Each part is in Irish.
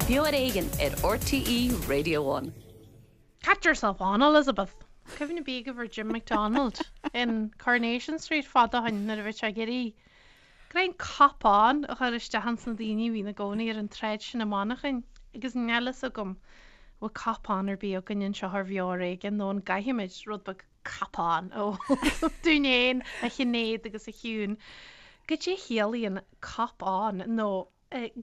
Beo ar Éigean ar RTÉ Radio One. Catch yourself on, Elizabeth! Cuimhne ar bith agaibh ar Jim McDonald in Coronation Street fad ó shin nuair a bhí sé ag iarraidh go raibh an cop on a chur isteach ins na daoine a bhí ina gcónaí ar an tsráid sin i Manchain agus níl fhios agam bhfuil cop on ar bith againn anseo ar Bheo ar Éigean nó an gcaithfimid rud beag cop on a ól dúinn fhéin a Shinéad agus a Shiún. Goidé a chiallaíonn cop on nó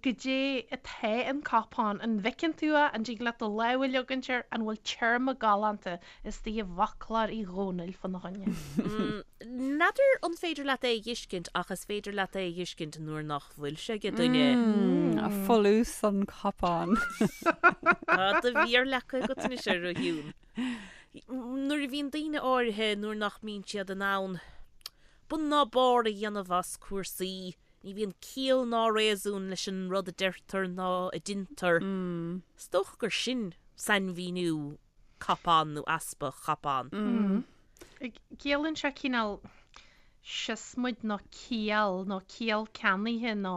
Goidé atá an cop on? An bhfeiceann tú é? An dtig leat do lámh a leogaint air? An bhfuil téarma galánta istigh i bhfoclóir Uí Dhónaill fána choinne? N'fheadar an féidir leat é a dh'fheiscint ach is féidir leat é a dh'fheiscint nuair nach bhfuil sé ag duine. Folús an cop on. Tá do mhéar leagtha agat anois air, a Shiún. Nuair a bhíonn daoine áirithe, nuair nach mbíonn siad in ann bun ná barr a dhéanamh as cúrsaí, Ní bhíonn ciall ná réasún leis an rud a deirtear ná a deintear. Is dócha gur sin sainmhíniú cop on nó easpa cop on. Ciallaíonn sé cineál siosmaid nó ciall nó ciall ceannaithe nó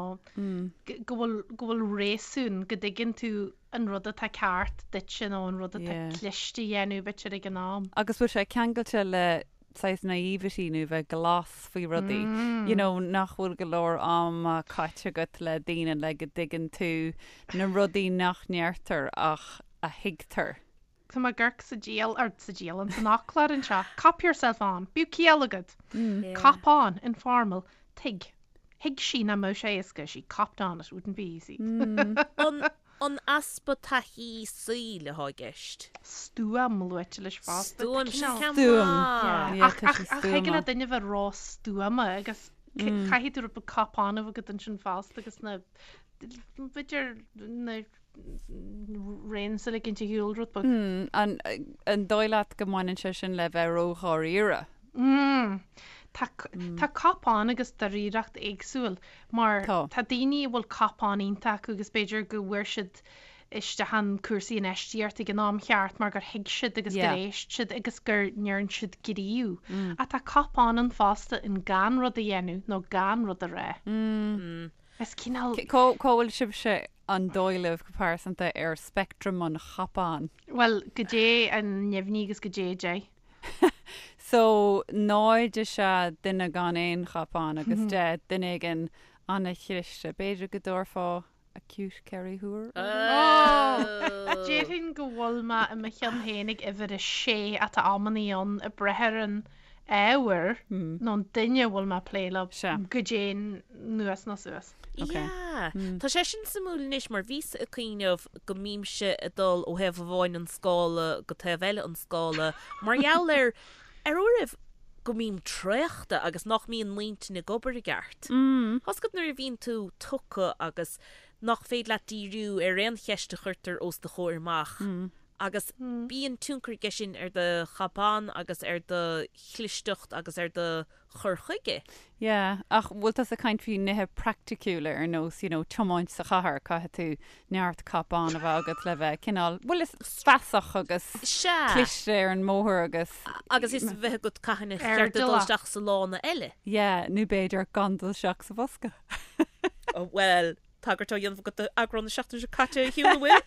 go bhfuil go bhfuil réasún, go dtuigeann tú an rud atá ceart duitse nó an rud atá cliste a dhéanamh b'fhéidir ag an am. Agus bhfuil sé ceangailte le saghas naivety nó bheith glas faoi rudaí, you know, nach bhfuil go leor ama caite agat le daoine le go dtuigeann tú na rudaí nach ndeirtear ach a thuigtear. Tá mé ag amharc sa dial, or sa dialann, san fhoclóir anseo, cop yourself on, bíodh ciall agat! Cop on, informal, tuig. Thuig sí nach mbeadh sé éasca, she copped on, it wouldn't be easy. An An easpa taithí saoil atá i gceist. Stuaim luaite leis fosta. Stuaim, sin ceann Stuaim. maith. Yeah, Ach tá sé ach thig le stuama. duine bheith ró-stuama agus caithfidh tú rud beag cop on a bheith agat ansin fosta agus na b'fhéidir na reins a ligint ar shiúl rud beag. An an dóigh leat go mbaineann sé sin le bheith ró-dháiríre? Tá tá cop on agus dáiríreacht éagsúil mar Tá. tá daoine a bhfuil cop on iontach acu agus b'fhéidir go bhfuair siad isteach in cúrsaí infheistíochta ag an am cheart mar gur thuig siad agus gur Yeah. éist siad agus gur ndearn siad gníomh. Ach tá cop on ann fosta in gan rud a dhéanamh nó gan rud a rá. Is cineál. Cá cá bhfuil sibhse an dóigh libh go pearsanta ar speictream an chop on? Bhuel, goidé an neamhní agus goidé 10. So, 0 is ea duine gan aon chop on agus 10 duine éigin ana-chliste. B'fhéidir go dtabharfá acute Kerry Thuar orthu? Déarfainn go bhfuil mé i mo cheann féin ag uimhir a sé ach tá amannaí ann ag brath ar an ábhar nó an duine a bhfuil mé ag plé leo goidé anuas nó suas. Ok. Yeah. Tá sé sin suimiúil anois mar bhíos ag cuimhneamh go mbímse ag dul ó thaobh amháin an scála go taobh eile an scála mar gheall ar ar uairibh go mbím traochta agus nach mbíonn m'intinn ag obair i gceart. Tá's agat nuair a bhíonn tú tugtha agus nach féidir leat díriú ar aon cheist a chuirtear os do chomhair amach agus bíonn tionchar aige sin ar do chop on agus ar do chlisteacht agus ar do chur chuige. Yeah, ach bhfuil tusa ag caint faoi nithe praiticiúla ar nós, you know, tiomáint sa chathair, caithfidh tú neart cop on a bheith agat le bheith cineál, bhuel is feasach agus Sea. cliste ar an mbóthar agus. Agus is bheith agat cathain a cheart duit dul Airdeallach. isteach sa lána eile. Yeah, nó b'fhéidir gan dul isteach sa bhosca. Bhuel, Tagairt á dhéanamh agat d'eagrán na seachtaine seo caite a Shiún, an bhfuil?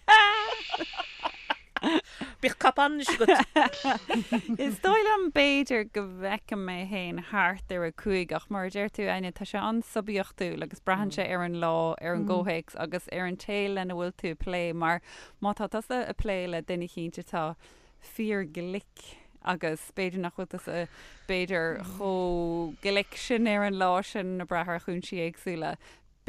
Bíodh cop on anois agat. Is dóigh liom b'fhéidir go bhfeicim mé féin thart ar 5 ach mar a deir tú Áine, tá sé an-suibiachtúil agus braitheann sé ar an lá, ar an gcomhthéacs agus ar an té lena bhfuil tú ag plé mar má tá tusa ag plé le duine eicínt atá fíorghlic agus b'fhéidir nach bhfuil tusa b'fhéidir chomh glic sin ar an lá sin ag brath ar chúinsí éagsúla.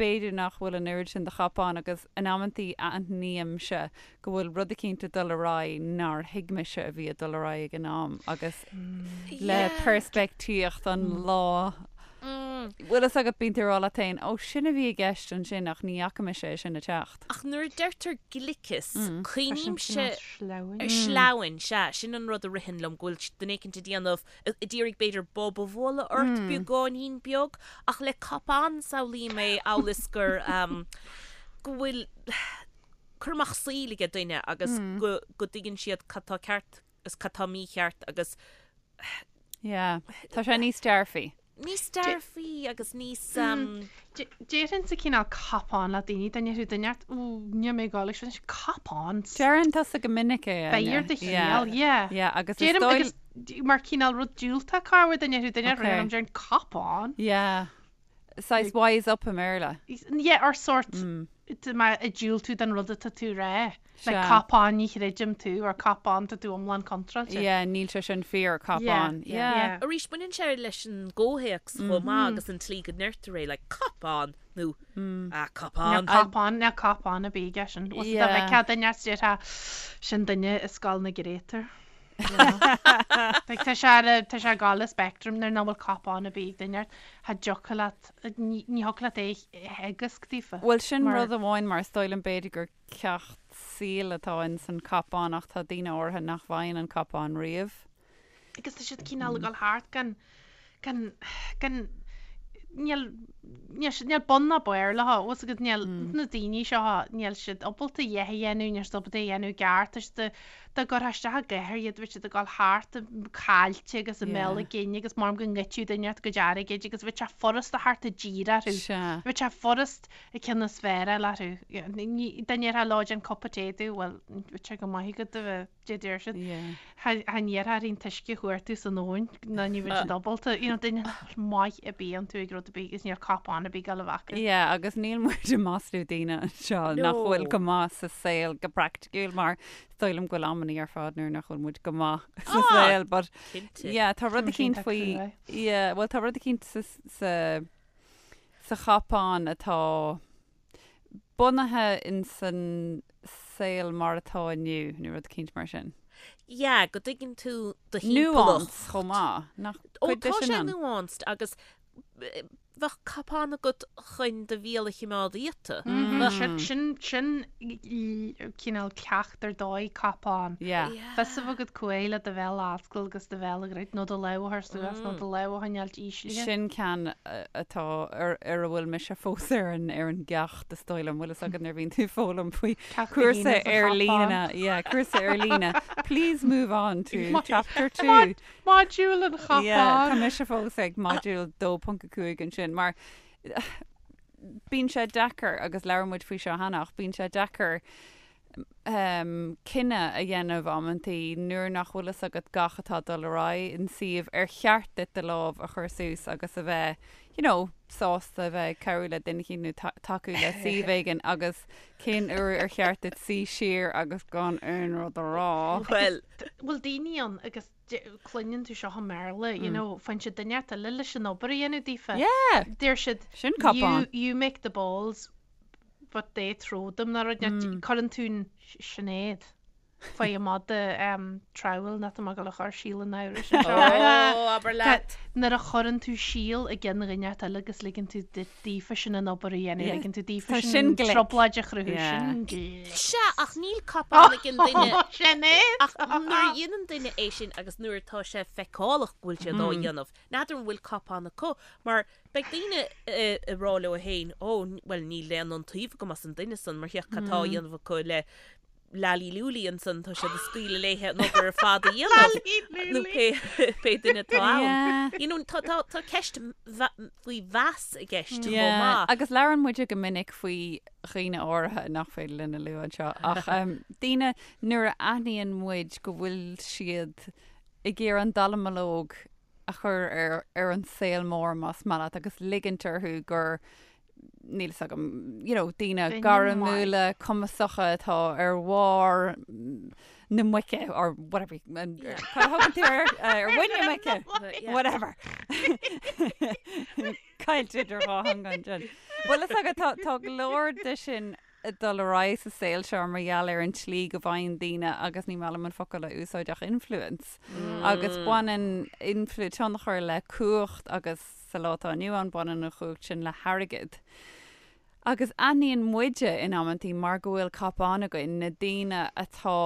B'fhéidir nach bhfuil an oiread sin de chop on agus in amantaí aithnímse go bhfuil rud eicínt ag dul ar aghaidh nár thuig mise a bhí ag dul ar aghaidh ag an am agus le peirspictíocht an lá bhfuil fhios agat bíonn tú ag rá leat féin ó sin a bhí i gceist ansin ach ní fhaca mise é sin ag teacht. Ach nuair a deirtear gliceas, cuimhnímse Sleamhain. ar sleamhain, sea, sin an rud a ritheann liom, go bhfuil duine éicint ag déanamh ag iarraidh b'fhéidir bob a bhualadh ort beagáinín beag, ach le cop on samhlaím é amhail is gur go bhfuil cur amach saoil ag duine agus go go dtuigeann siad cad tá ceart agus cad tá mícheart agus Yeah, tá sé níos dearfaí. Níos dearfaí agus níos. Déarfainnse cineál cop on le daoine, dá ndéarfadh duine ort, Ó, níl mé ag dul ag sin, cop on. Deireann tusa go minic é, Áine. Beir do chiall, yeah. Yeah, agus is dóigh. Agus mar cineál rud diúltach corruair dá ndéarfadh duine ort, okay, déarfainn cop on. Yeah. Saghas wise up i mBéarla. Yeah, or sort, má ag diúltú don rud atá tú a rá. Like cop on ní chreidim tú or cop on tá tú iomlán contráilte. Yeah, níl sé sin fíor, cop on. Yeah. Arís, baineann sé leis an gcomhthéacs chomh maith agus an tslí go ndeirtear é, like cop on nó ah cop on. Níl cop on, níl cop on ar bith aige sin. Bhfuil dá bhfeicfeá duine as déarfá sin duine i scoil na gcréatúr. Like tá sé ar a, tá sé ag gabháil le spectrum nuair nach bhfuil cop on ar bith ag duine ort, cha dtiocfadh leat, ní thiocfadh leat é a theagasc daofa. Bhuel sin rud amháin mar is dóigh liom b'fhéidir gur ceacht saoil atá in san cop on ach tá daoine áirithe nach bhfaigheann an cop on riamh. Agus tá siad cineál ag dul thart gan, gan, gan, níl, níl siad, níl bun ná barr leo, bhfuil fhios agat, níl na daoine seo, níl siad ábalta a dhath a dhéanamh, níl siad ábalta a dhéanamh i gceart, tá siad, dá gcuirfeá isteach i gcathair iad, bheadh siad ag dul thart caillte agus i mbéal a gcinn agus maram go ngoidfeadh duine ort a gcuid airgid agus bheadh sé furast a theacht i dtír orthu. Bheadh sé furast an ceann is fearr a fháil orthu. Dá ndéarfá leo déan cupa tae domh, bhuel, bheadh sé go maith agat a bheith, dé deir siad. Cha ndéarfá orthu an t-uisce a chuartú san abhainn ná ní bheadh siad ábalta, you know, duine nach bhfuil maith ar bith iontu ag rud ar bith agus níl cop on ar bith ag dul a bheith acu. Yeah, agus níl muid ag maslú daoine anseo nach bhfuil go maith sa saol go praiticiúil mar is dóigh liom go bhfuil amannaí ar fad nuair nach bhfuil muid go maith sa saol, but yeah, tá rud eicínt faoi, yeah, bhuel tá rud eicínt sa, sa, sa chop on atá bunaithe in san saol mar atá inniu, nó rud eicínt mar sin. Yeah, go dtuigeann tú do thimpeallacht. Nuance chomh maith, nach Ó, cuid de tá sin sé ann? nuanced agus bheadh cop on agat chun do bhéal a chimeád iata. Bheadh. Sin, sin cineál ceacht ar dóigh, cop on. Yeah. Fios a bheith agat cá huair le do bhéal a oscailt agus do bhéal a dhruid, nó do lámh a chur suas, nó do lámh a choinneáilt íslithe. Sin ceann atá ar ar a bhfuil mise fós ar an ar an gceacht is dóigh liom. Bhfuil fhios agat nuair a bhíonn tú ag foghlaim faoi Ceacht a cúrsa haon is a ar chop líne, on. yeah, cúrsa ar líne. Please move on to chapter 2. Module an chop Yeah, tá on. mise fós ag module 2.5 ansin mar bíonn sé deacair agus labhair muid faoi seo cheana ach bíonn sé deacair cinneadh a dhéanamh amantaí nuair nach bhfuil fhios agat gach atá ag dul ar aghaidh in suíomh ar cheart duit do lámh a chur suas agus a bheith you know sásta a bheith ag cabhrú le duine éicint nó tacú le suíomh éigin agus cén uair ar cheart duit suí siar agus gan aon rud a rá. Bhuel. Bhfuil daoine ann agus cluineann tú seo i mBéarla you know faigheann siad duine eile leis an obair a dhéanamh daofa. Yeah! Deir siad Sin cop on. you make the balls but they throw them nó rud mm. Cuireann tú an Sinéad faoi i mada trowel nach tá mé ag dul a chur síol an amhrais anseo. Ó, abair leat. Nuair a chuireann tú síol i gceann dhuine eile agus ligeann tú daofa sin an obair a dhéanamh, ligeann tú daofa Tá sin sin glic. trioblóid a chruthú, Yeah. sin glic. Sea, ach níl cop on ag an duine. Sinéad! Ach nuair a dhéanann duine é sin agus nuair atá sé feiceálach go bhfuil siad á dhéanamh, n'fheadar an bhfuil cop on acu, mar Beidh daoine ag rá leo féin, ó, bhuel, níl aon iontaoibh agam as an duine san, mar féach cad tá á dhéanamh acu le Lally Lúlaí ansan, tá siad ag scaoileadh léithe an obair ar fad a dhéanamh, nó pé, pé duine atá ann. You know, tá, tá, tá ceist faoi mheas i gceist chomh maith. Agus labhrann muide go minic faoi dhaoine áirithe nach féidir linn a lua anseo, ach daoine nuair a aithníonn muid go bhfuil siad ag iarraidh an dallamullóg a chur ar ar an saol mór más maith leat agus ligint orthu gur níl fhios agam you know daoine Duine gairmiúla cumasacha atá ar bharr na muice or whatever cad a thugann tú ar ar mhuin na muice whatever Caillte idir dhá theanga ansin. Bhfuil fhios agat tá tá go leor de sin ag dul ar aghaidh sa saol seo mar gheall ar an tslí go bhfaigheann daoine, agus ní maith liom an focal a úsáid ach influence, agus baineann influ, tionchar le cumhacht agus sa lá atá inniu ann baineann an chumhacht sin le hairgead. Agus aithníonn muide in amantaí mar go bhfuil cop on againn, na daoine atá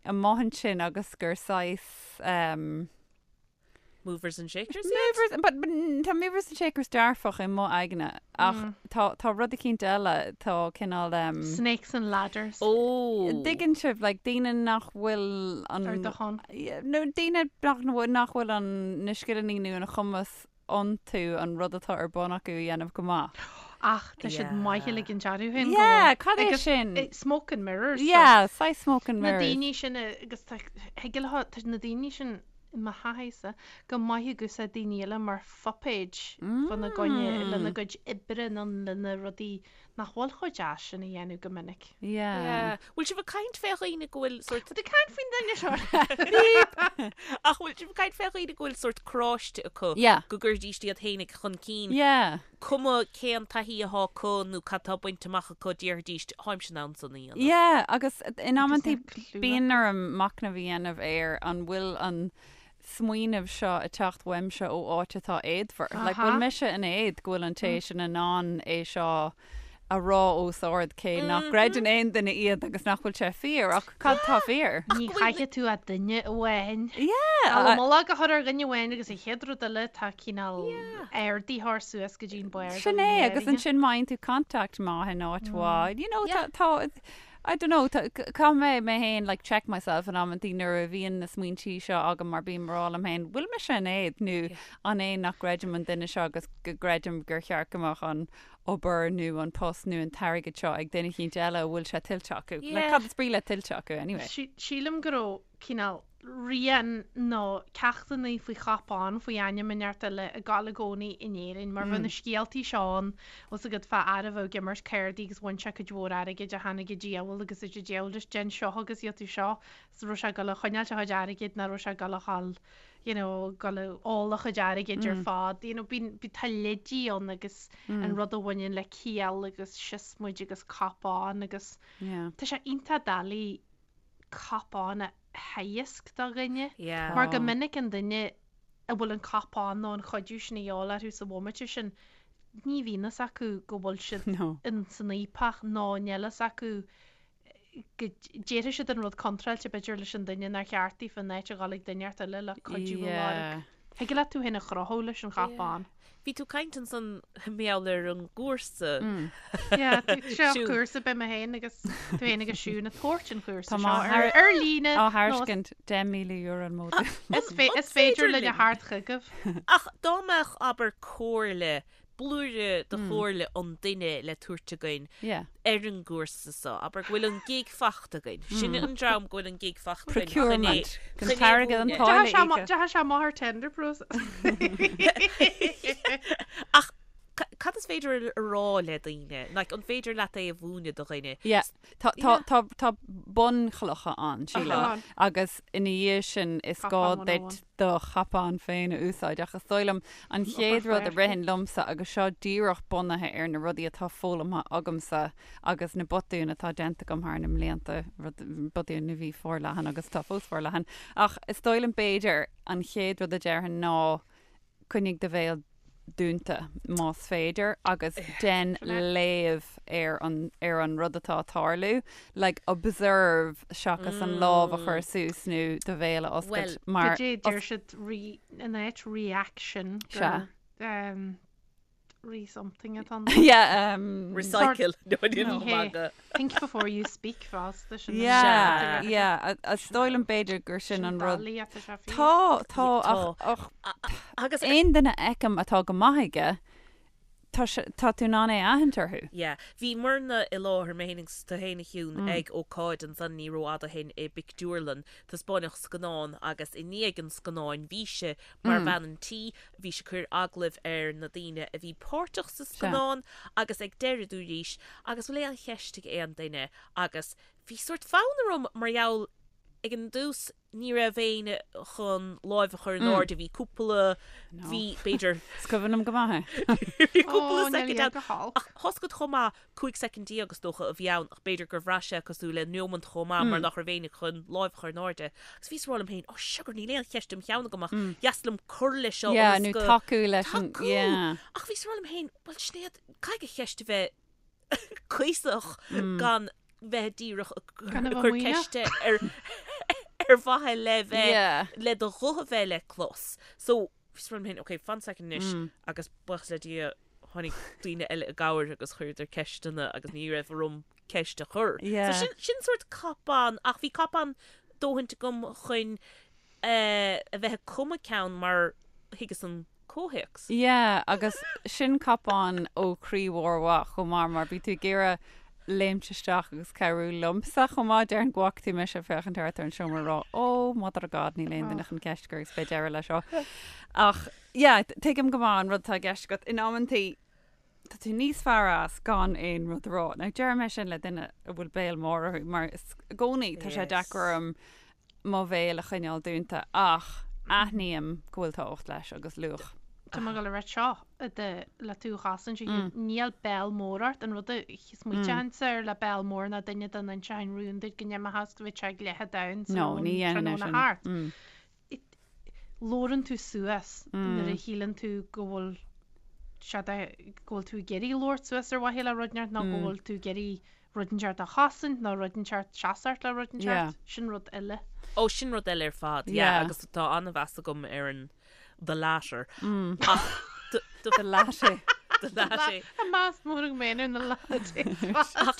amuigh ansin agus gur saghas ehm, Movers and shakers iad? Movers, but, but tá movers and shakers dearfach i mo aigne ach tá, tá rud eicínt eile, tá cineál um, Snakes and ladders. Ó! Dtuigeann sibh, like, daoine nach bhfuil an... Ar do shon. Yeah, nó daoine nach, nach bhfuil an, na scileanna nó an chumas. iontu an rud atá ar bun acu a dhéanamh go maith. Ach tá siad maith ag ligean dearúd féin go Yeah, bhfuil. cad é Agus sin? smoke and mirrors. so Yeah, saghas smoke and Na mirrors. daoine sin agus tá thig leo tá na daoine sin i mo thaithísa go maith ag úsáid daoine eile mar phuipéid fána gcoinne lena gcuid oibre nó lena rudaí nach bhfuil chomh deas sin a dhéanamh go minic. Yeah. Bhfuil sibh ag caint fé dhaoine go bhfuil sort. Tá caint faoin duine seo. Ach bhfuil sibh ag caint fé dhaoine go bhfuil sort cráiste acu Yeah. go gcuirdíst iad fhéinig chun cinn, Yeah. cuma cén taithí athá acu nó cad tá bainte amach acu déarfaidíst tháimse in ann san a dhéanamh. Yeah, agus in amantaí Agus na clú bíonn orm machnamh a dhéanamh ar an bhfuil an smaoineamh seo ag teacht uaimse ó áit atá éadmhar. Like, bhfuil mise in éad go bhfuil an té sin in ann é seo a rá os ard cé nach gcreideann aon duine iad agus nach bhfuil sé fíor, ach cad tá fíor? Ní chaithfidh tú ach duine amháin. Yeah! Dallamullóg a chur ar dhuine amháin agus an chéad rud eile tá cineál ardaitheoir suas go dtí an barr. Sin é, agus ansin má fhaigheann tú contact maith in áit mhaith, you know, tá, tá, I don't know, caithfidh mé mé féin like check myself in amantaí nuair a bhíonn na smaointí seo agam mar bím ag rá liom féin, bhfuil mise in éad nó an é nach gcreidim an duine seo agus go gcreidim gur cheart go mbeadh an obair nó an post nó an t-airgead seo ag duine eicínt eile a bhfuil sé tuillte acu. Like cad is brí le tuillte acu anyway? Sílim go raibh cineál rian nó ceachtanna faoi chupán, faoi ainm inteacht eile ag gabháil i gcónaí in Éirinn, mar bheadh na scéaltaí seo ann, bhfuil 's agat, fá fhear a bheadh ag imirt cárdaí agus bhain sé cuid mhór airgid ach tháinig an diabhal agus dúirt an diabhal leis déan seo agus gheobhaidh tú seo, is raibh sé ag dul a choinneáilt a chuid airgid nach raibh sé ag dul a dhul you know, ag dul a ól a chuid airgid ar fad, you know, bíonn, tá leidí ann agus an rud a bhaineann le ciall agus siosmaid agus cupán agus tá sé iontach doiligh cupán a theagasc do dhuine. Mar go minic an duine a bhfuil an cupán nó an chuidiú sin a dhíobháil orthu sa bhomaite sin, ní bhíonn fhios acu go bhfuil siad in san fhaopach nó níl fhios acu go déarfaidh siad an rud contráilte b'fhéidir leis an duine nár cheart daofa in áit a dhul ag duine inteacht eile le cuidiú a lorg. Thig leat tú féin a chruthú leis an chupán. Bhí tú ag caint ansan mar gheall ar an gcúrsa. Yeah, seo cúrsa beidh mé féin agus tú féin agus Siún ag tabhairt an chúrsa Tá seo má ar ar líne. Á thairiscint €10,000 an módúl. Is fé- is féidir linn a theacht chugaibh. Ach dá mbeadh, abair, comhairle blúire de chomhairle an duine le tabhairt againn ar an gcúrsa so, abair go bhfuil an gig fachta againn. Sin an dream go bhfuil an gig fachta againn. Procurement. An t-airgead an táille íoctha. Deachaigh sé amach ar tender process. Ach cad is féidir a rá le daoine? Like, an féidir leat é a mhúineadh do dhuine? Yeah. Tá, tá, tá, tá bunchlocha ann, sílim. Agus ina dhiaidh sin is gá duit do chupán féin a úsáid ach is dóigh liom an chéad rud a ritheann liomsa agus seo díreach bunaithe ar na rudaí atá foghlamtha agamsa agus na botúin atá déanta agam thar na mblianta, rud, botúin a bhí forleathan agus atá fós forleathan, ach is dóigh liom b'fhéidir an chéad rud a déarfainn ná coinnigh do bhéal dúnta, más féidir, agus dein léamh ar an, ar an rud atá ag tarlú, like observe seachas an lámh a chur suas nó do bhéal a oscailt mar. Goidé a deir siad re, in áit reaction gur um, re something atá ann. Yeah, um. Recycle. No, Ní hé. Think before you speak fosta sin. Yeah, yeah. Is dóigh liom b'fhéidir gur sin an rud. Tá, tá, ach, ach Agus aon duine a fheicim atá go maith aige, tá sé, tá tú in ann é a aithint orthu. Yeah. Bhíomarna i láthair, mé féin agus tú féin a Shiún, ag ócáid ansan ní rófhada ó shin i bpictiúrlann. Taispeáineadh scannán agus i ndiaidh an scannáin bhíse mar bhean an tí, bhís ag cur agallaimh ar na daoine a bhí páirteach sa scannán agus ag deireadh dúraís agus bhfuil aon cheist ag aon duine agus bhí sórt fonn orm mar gheall ag an dtús ní raibh éinne chun láimh a chur in airde, bhí cúpla, bhí b'fhéidir. Is cuimhin liom go maith é. Bhí cúpla soicind ann ach tá 's agat chomh maith, 15 soicind is dócha a bhí ann ach b'fhéidir gur bhraith sé cosúil le neomant chomh maith mar nach raibh éinne chun láimh a chur in airde. Agus bhíos ag rá liom féin, oh sugar níl aon cheist im cheann agam ach dheas liom cur leis seo Yeah, nó tacú leis an, yeah. Ach bhíos ag rá liom féin, bhuel Sinéad, caithfidh an cheist a bheith cuíosach gan bheith díreach ag cur ceiste ar ar mhaithe le bheith le do ghuth a bheith le clos. So bhíos ag rá liom féin, ok, fan soicind anois agus buíochas le Dia tháinig daoine eile i gcabhair agus chuireadar ceisteanna agus ní raibh orm ceist a chur. So sin, sin sórt cop-on ach bhí cop-on dóthaint agam chun a bheith ag cumadh ceann mar thuigeas an. comhthéacs. Yeah, agus sin cop-on ó chroí mhór mhaith chomh maith mar bhí tú ag iarraidh léimt isteach agus cabhrú liomsa chomh maith. Déarfainn go bhfaca tú mise ag féachaint thart ar an seomra ag rá oh mother of God níl aon duine chun ceist a chur agus beidh deireadh leis seo. Ach yeah, tuigim go maith an rud atá i gceist agat. In amantaí tá tú níos fearr as gan aon rud a rá. Now deirim é sin le duine a bhfuil béal mór orthu mar is i gcónaí tá sé deacair orm mo bhéal a choinneáil dúnta ach aithním go bhfuil tábhacht leis agus luach. Tá mé ag dul a rá seo le tú a chosaint a Hugh, níl béal mór ort, an rud a smaoiteochainnse air le béal mór ná duine dá n-inseochainn rún duit go n-imeochas go bhféadfadh sé ag leath domhan sa No, ní dhéanfainn é tráthnóna sin. thart. Labhrann tú suas nuair a shíleann tú go bhfuil sé de, go bhfuil tú ag iarraidh labhairt suas ar mhaithe le rud inteacht nó go bhfuil tú ag iarraidh rud inteacht a chosaint nó rud inteacht seasacht le rud inteacht, sin rud eile. Ó, sin rud eile ar fad, yeah, agus tá an-mheas agam ar an the latter. Ach the the latte. The latte. Tá meas mór agam féin ar na lattes.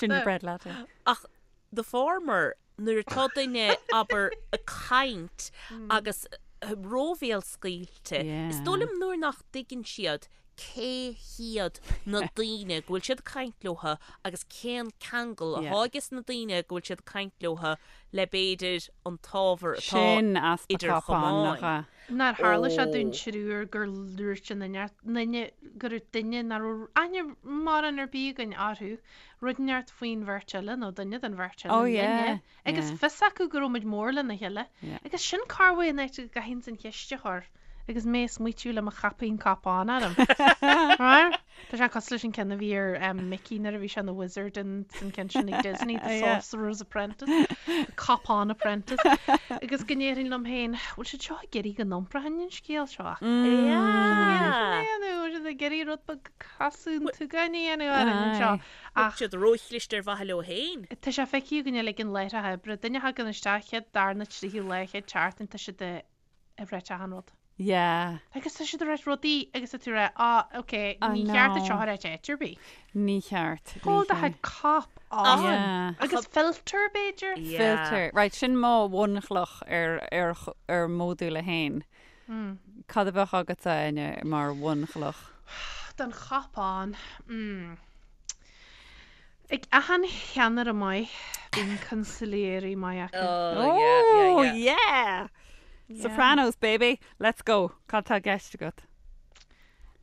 Gingerbread latte. Ach the former, nuair atá duine, abair, ag caint agus róbhéalscaoilte, is dóigh liom nuair nach dtuigeann siad cé hiad na daoine go bhfuil siad ag caint leotha agus cén ceangal atá ages na daoine go bhfuil siad ag caint leotha le b'fhéidir an t-ábhar atá Sin easpa idir cop-on, nach chamáin. ea? Nár tharla sé dúinn triúr gur dhúirt an duine, duine, go raibh duine nach raibh aithne mórán ar bith againn orthu, rud inteacht faoin bheirt eile nó duine den bheirt eile Oh linne yeah, agus yeah. fios acu go raibh muid mór lena chéile Yeah. agus sin corruair an áit a gcaithfinn an cheist a chur. Agus mé ag smaoitiú le mo chaipín cop-on orm. Right? Tá sé cosúil leis an ceann a bhí ar um, Mickey nuair a bhí sé ina wizard in san ceann sin ag Disney, The Yeah. Sorcerer's Apprentice, The Cop-on Apprentice. Agus go ndéarfainn liom féin, bhfuil siad seo ag iarraidh go n-iompróinn an scéal seo? Yeah. Nó bhfuil siad ag iarraidh rud beag casadh an tsugáin a dhéanamh orainn anseo. Bhfuil Ach siad róchliste ar mhaithe leo féin. tá sé feicthe againn uilig in láithreacha oibre, duine a thagann isteach chéad, darna, tríú lá, chéad tseachtain, tá siad ag ag ráit achan rud. Yeah. Agus tá siad ag ráit rudaí agus tá tú ag rá, ah, ok, I ní cheart duit know. seo a ráit áit ar bith. Ní cheart. Ní Hold do cheart. chuid cop on. Yeah. Agus filter, b'fhéidir? Yeah. Filter. Right, sin mo bhunchloch ar, ar, ar mhodúl a haon. Cad a bheadh agatsa, Áine, mar bhunchloch? Don chop on. Mm. Ag achan cheannaire maith, bíonn consigliere maith acu. Oh, yeah, yeah, Oh, yeah. yeah! Sopranos, baby! Let's go! Cad tá i gceist agat?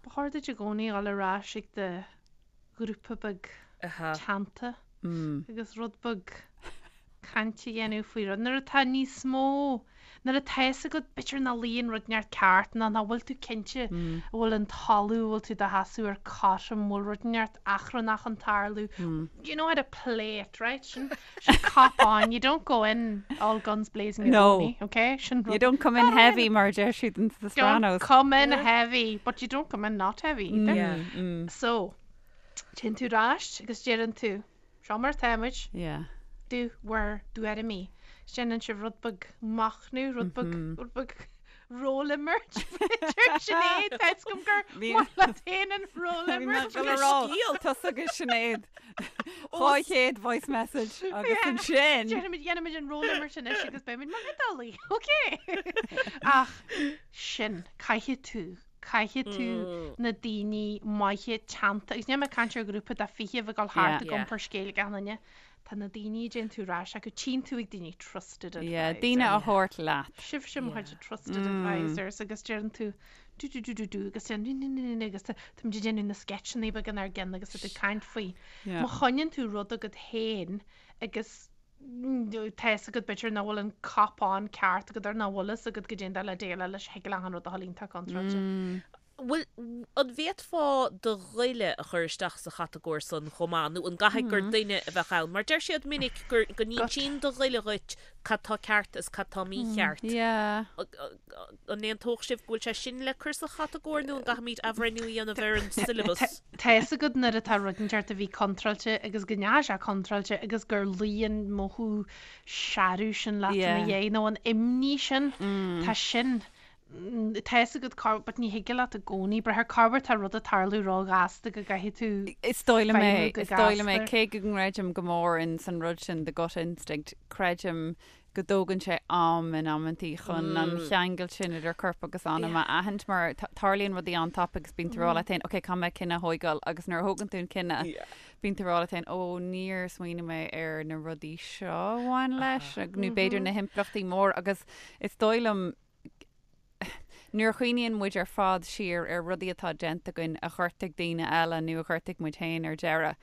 Ba chóir duit i gcónaí dul ar ais ag do ghrúpa beag teannta agus rud beag caint a dhéanamh faoi rud. Nuair atá níos mó, nuair atá fhios agat b'fhéidir nach luíonn rud inteacht ceart nó nach bhfuil tú cinnte an bhfuil an talamh a bhfuil tú do sheasamh air cothrom, an bhfuil rud inteacht achrannach ag tarlú. You know how to play it, right? Sin, sin cop on. You don't go in all guns blazing i No. gcónaí, okay? Sin You rud. don't come in heavy mar a deir siad in The Don't Sopranos. come in heavy, but you don't come in not heavy either. Yeah. So, téann tú ar ais agus deireann tú, Seo mar atáimid. Yeah. Do bhur dtuairimí. Déanann sibh rud beag machnaimh, rud beag, rud beag rólimirt, b'fhéidir. Sinéad, tá fhios agam gur maith leat féin an rólimirt. Bhí mé ag dul a rá, tusa agus Sinéad, 200 voice message agus ansin. Déanfaimid, déanfaimid an rólimirt anois agus beimid mar Iodálaigh, ok? Ach sin, caithfidh tú Caithfidh tú na daoine maithe teannta, agus níl mé ag caint ar ghrúpa de 20 a bheith ag dul thart ag iompar scéil ag achan duine, tá na daoine a dtéann tú ar ais acu, tchíonn tú ag daoine trusted advisors. Yeah, daoine a thabhairt leat. Sibhse mo chuid trusted advisors agus deireann tú do do do do do agus déan ní ní ní ní agus táimid ag déanamh na sketcheanna beaga inár gceann agus tá tú ag caint faoi. Má choinníonn tú rud agat féin agus tá fhios agat b'fhéidir nach bhfuil an cop on ceart agat or nach bhfuil fhios agat goidé an dóigh le déileáil leis thig le achan rud a dhul iontach contráilte. Bhfuil, an bhféadfá do ghoile a chur isteach sa chatagóir san chomh maith nó an gcaithfidh gur duine a bheadh ann? Mar deir siad minic gur, go n-insíonn do ghoile dhuit cad tá ceart is cad tá mícheart. Yeah. An aontódh sibh go bhfuil sé sin le cur sa chatagóir nó an gcaithfimid athbhreithniú a dhéanamh ar an syllabus? Tá fhios agat nuair atá rud inteacht a bhí contráilte agus go ndeachaigh sé contráilte agus gur luigh an mothú searbh sin leat ina dhiaidh nó an imní sin, tá sin. Tá fhios agat corruair, but ní thig leat i gcónaí brath ar corruair tá rud ag tarlú ró-ghasta go gcaithfidh tú Is dóigh liom é, feidhmiú go is dóigh liom é, gasta. cé go gcreidim go mór in san rud sin, the gut instinct, creidim go dtógann sé am in amantaí chun an cheangal sin idir corp agus anam a aithint mar tarlaíonn rudaí an-tapaidh agus bíonn tú ag rá leat féin, ok, caithfidh mé cinneadh a thóigeáil agus nuair a thógann tú an cinneadh, bíonn tú ag rá leat féin, ó, níor smaoinigh mé ar na rudaí seo a bhain leis, nó b'fhéidir na himpleachtaí móra agus is dóigh liom nuair a chuimhníonn muid ar fad siar ar rudaí atá déanta againn a ghortaigh daoine eile nó a ghortaigh muid féin ar deireadh,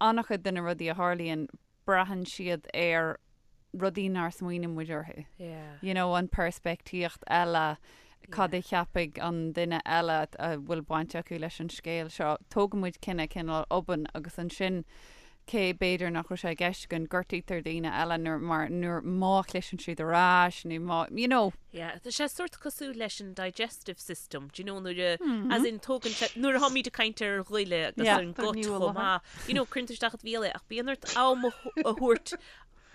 an-chuid de na rudaí a tharlaíonn, braitheann siad ar rudaí nár smaoinigh muid orthu. You know, an peirspictíocht eile, cad a cheapfaidh an duine eile a bhfuil baint acu leis an scéal seo. Tógann muid cinneadh cineál obann agus ansin cé b'fhéidir nach raibh sé i gceist againn, gortaítear daoine eile nuair mar nuair má chliseann siad ar ais nó má, you know. Yeah, tá sé sórt cosúil leis an digestive system, do you know, nuair a, as in tógann sé, nuair a tháimid ag caint ar ghoile agus Yeah. ar an gut chomh maith, you know, cuireann tú isteach i do bhéal é ach bíonn ort am a thabhairt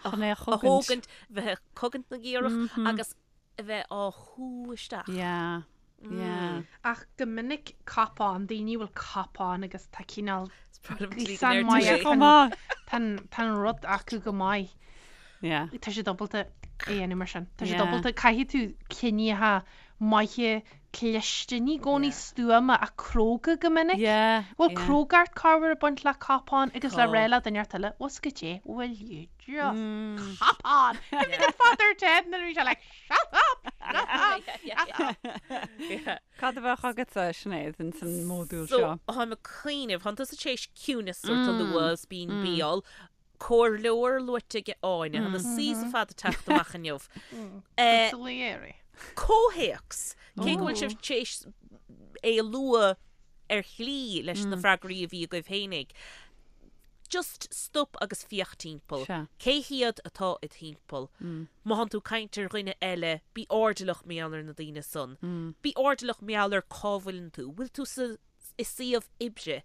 Chun é a a chogaint. thógaint, bheith ag cogaint na gcaorach agus a bheith á shú isteach. Yeah, yeah. Ach go minic cop-on, daoine a bhfuil cop-on agus tá cineál Is breá liom an tslí go gríosán ndeir tú maith é. acu. Chomh maith. Tá an- tá an rud acu go maith. Yeah. Tá siad ábalta é a dhéanamh mar sin. Tá siad Yeah. ábalta, caithfidh tú cinneadh maithe cliste, ní i gcónaí stuama ach cróga go minic. Yeah, Bhfuil yeah. crógacht corruair ag baint le cop-on agus le Tá. rá le duine inteacht eile, bhfuil 's agat é, will you just cop on? Cuimhnigh ar Father Ted nuair a bhí sé like, shut up, shut up, shut up. Yeah. Cad a bheadh agatsa, Sinéad, in san módúl So, seo? táim ag cuimhneamh, thánn tusa tar éis ciúnas sórt a lua is bíonn béal, comhairleoir luaite ag Áine, tá na C's ar fad ag teacht amach inniu. Eh, Consigliere. Comhthéacs, cé go bhfuil sibh tar éis é a lua ar shlí leis na freagraí a bhí agaibh fhéinig, just stop agus féach timpeall. Sea. Cé hiad atá id thimpeall? Má thánn tú ag caint ar dhuine eile, bí airdeallach mar gheall ar na daoine san. Bí airdeallach mar gheall ar cá bhfuileann tú. Bhfuil tú sa, i suíomh oibre?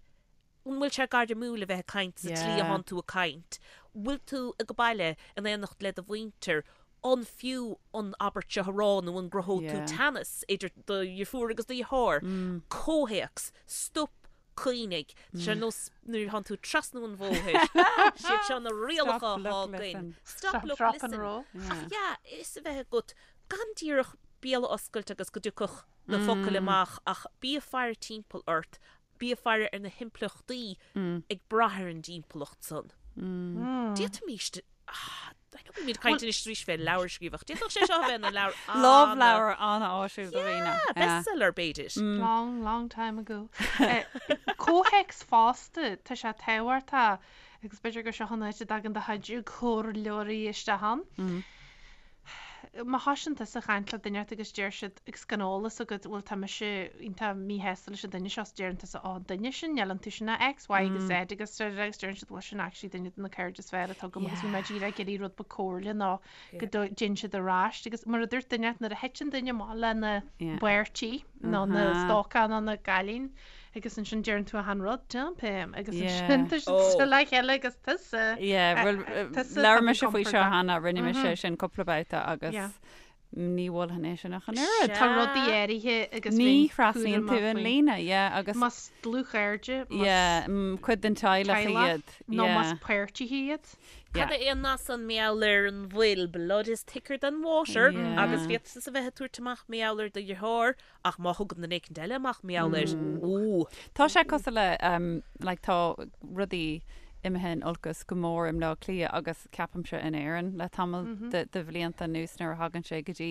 An bhfuil sé gairmiúil a bheith ag caint sa tslí a Yeah. thánn tú ag caint? Bhfuil tú ag baile in éineacht le do mhuintir? An fiú an abairt seo a rá nó an gcruthóidh tú Yeah. teannas idir do dheirfiúr agus do dheartháir? Comhthéacs, Stop, cuimhnigh. Tá sé ar nós nuair a thánn tú ag trasnú an bhóthair. Siad seo na rialacha Stop, atá look, againn. listen. Stop, Stop, look, drop and listen. roll. Ach yeah, is a bheith agat gan díreach béal a oscailt agus go dtiocfadh na focail amach ach bí ag faire timpeall ort Bí ag faire ar na himpleachtaí ag brath ar an dtimpeallacht san. D'fhéadfaimis, I know bímid ag caint anois arís fé leabhar a scríobh ach d'fhéadfadh sé seo a bheith ina leabhar ana. Lámhleabhar an-áisiúil do dhaoine. Yeah, bestseller b'fhéidir. Long, long time ago. Comhthéacs fosta, tá sé tábhachtach agus b'fhéidir gur seo an áit a dtagann do chuid comhairleoirí isteach ann. Má thosaíonn tusa ag caint le duine inteacht agus deir siad agus gan eolas agat bhuel tá mise iontach míshásta leis an duine seo is deireann tusa ó an duine sin níl iontu sin ach X, Y agus Z agus agus deireann siad bhuel sin actually duine de na cairde is fearr atá agam agus bhí mé díreach ag iarraidh rud beag comhairle nó go dtéann siad ar ais agus mar a dúirt duine inteacht nuair a thiteann duine amach lena bpáirtí nó na stócach nó na cailín agus ansin deireann tú achan rud, dump him, agus ansin tá siad le chéile agus tusa. Yeah, bhuel, labhair mise faoi seo cheana, rinne mise sin cúpla babhta agus ní mholfainn é sin ach an oiread. Tá rudaí áirithe agus Ní thrasnaíonn tú an líne, yeah, agus. Más dlúthchairde, más. Yeah, cuid den teaghlach iad. Nó más páirtithe iad. Cad é an nath san mar gheall ar an bhfuil, blood is thicker than water, agus féadfá a bheith ag tabhairt amach mar gheall ar do dheartháir, Ach má thugann duine éicint eile amach mar gheall air, ooh. Tá sé cosúil le, like, tá rudaí imithe in olcas go mór i mBleá Cliath agus ceapaimse in Éirinn le tamall de, de bhlianta anuas nuair a thagann sé go dtí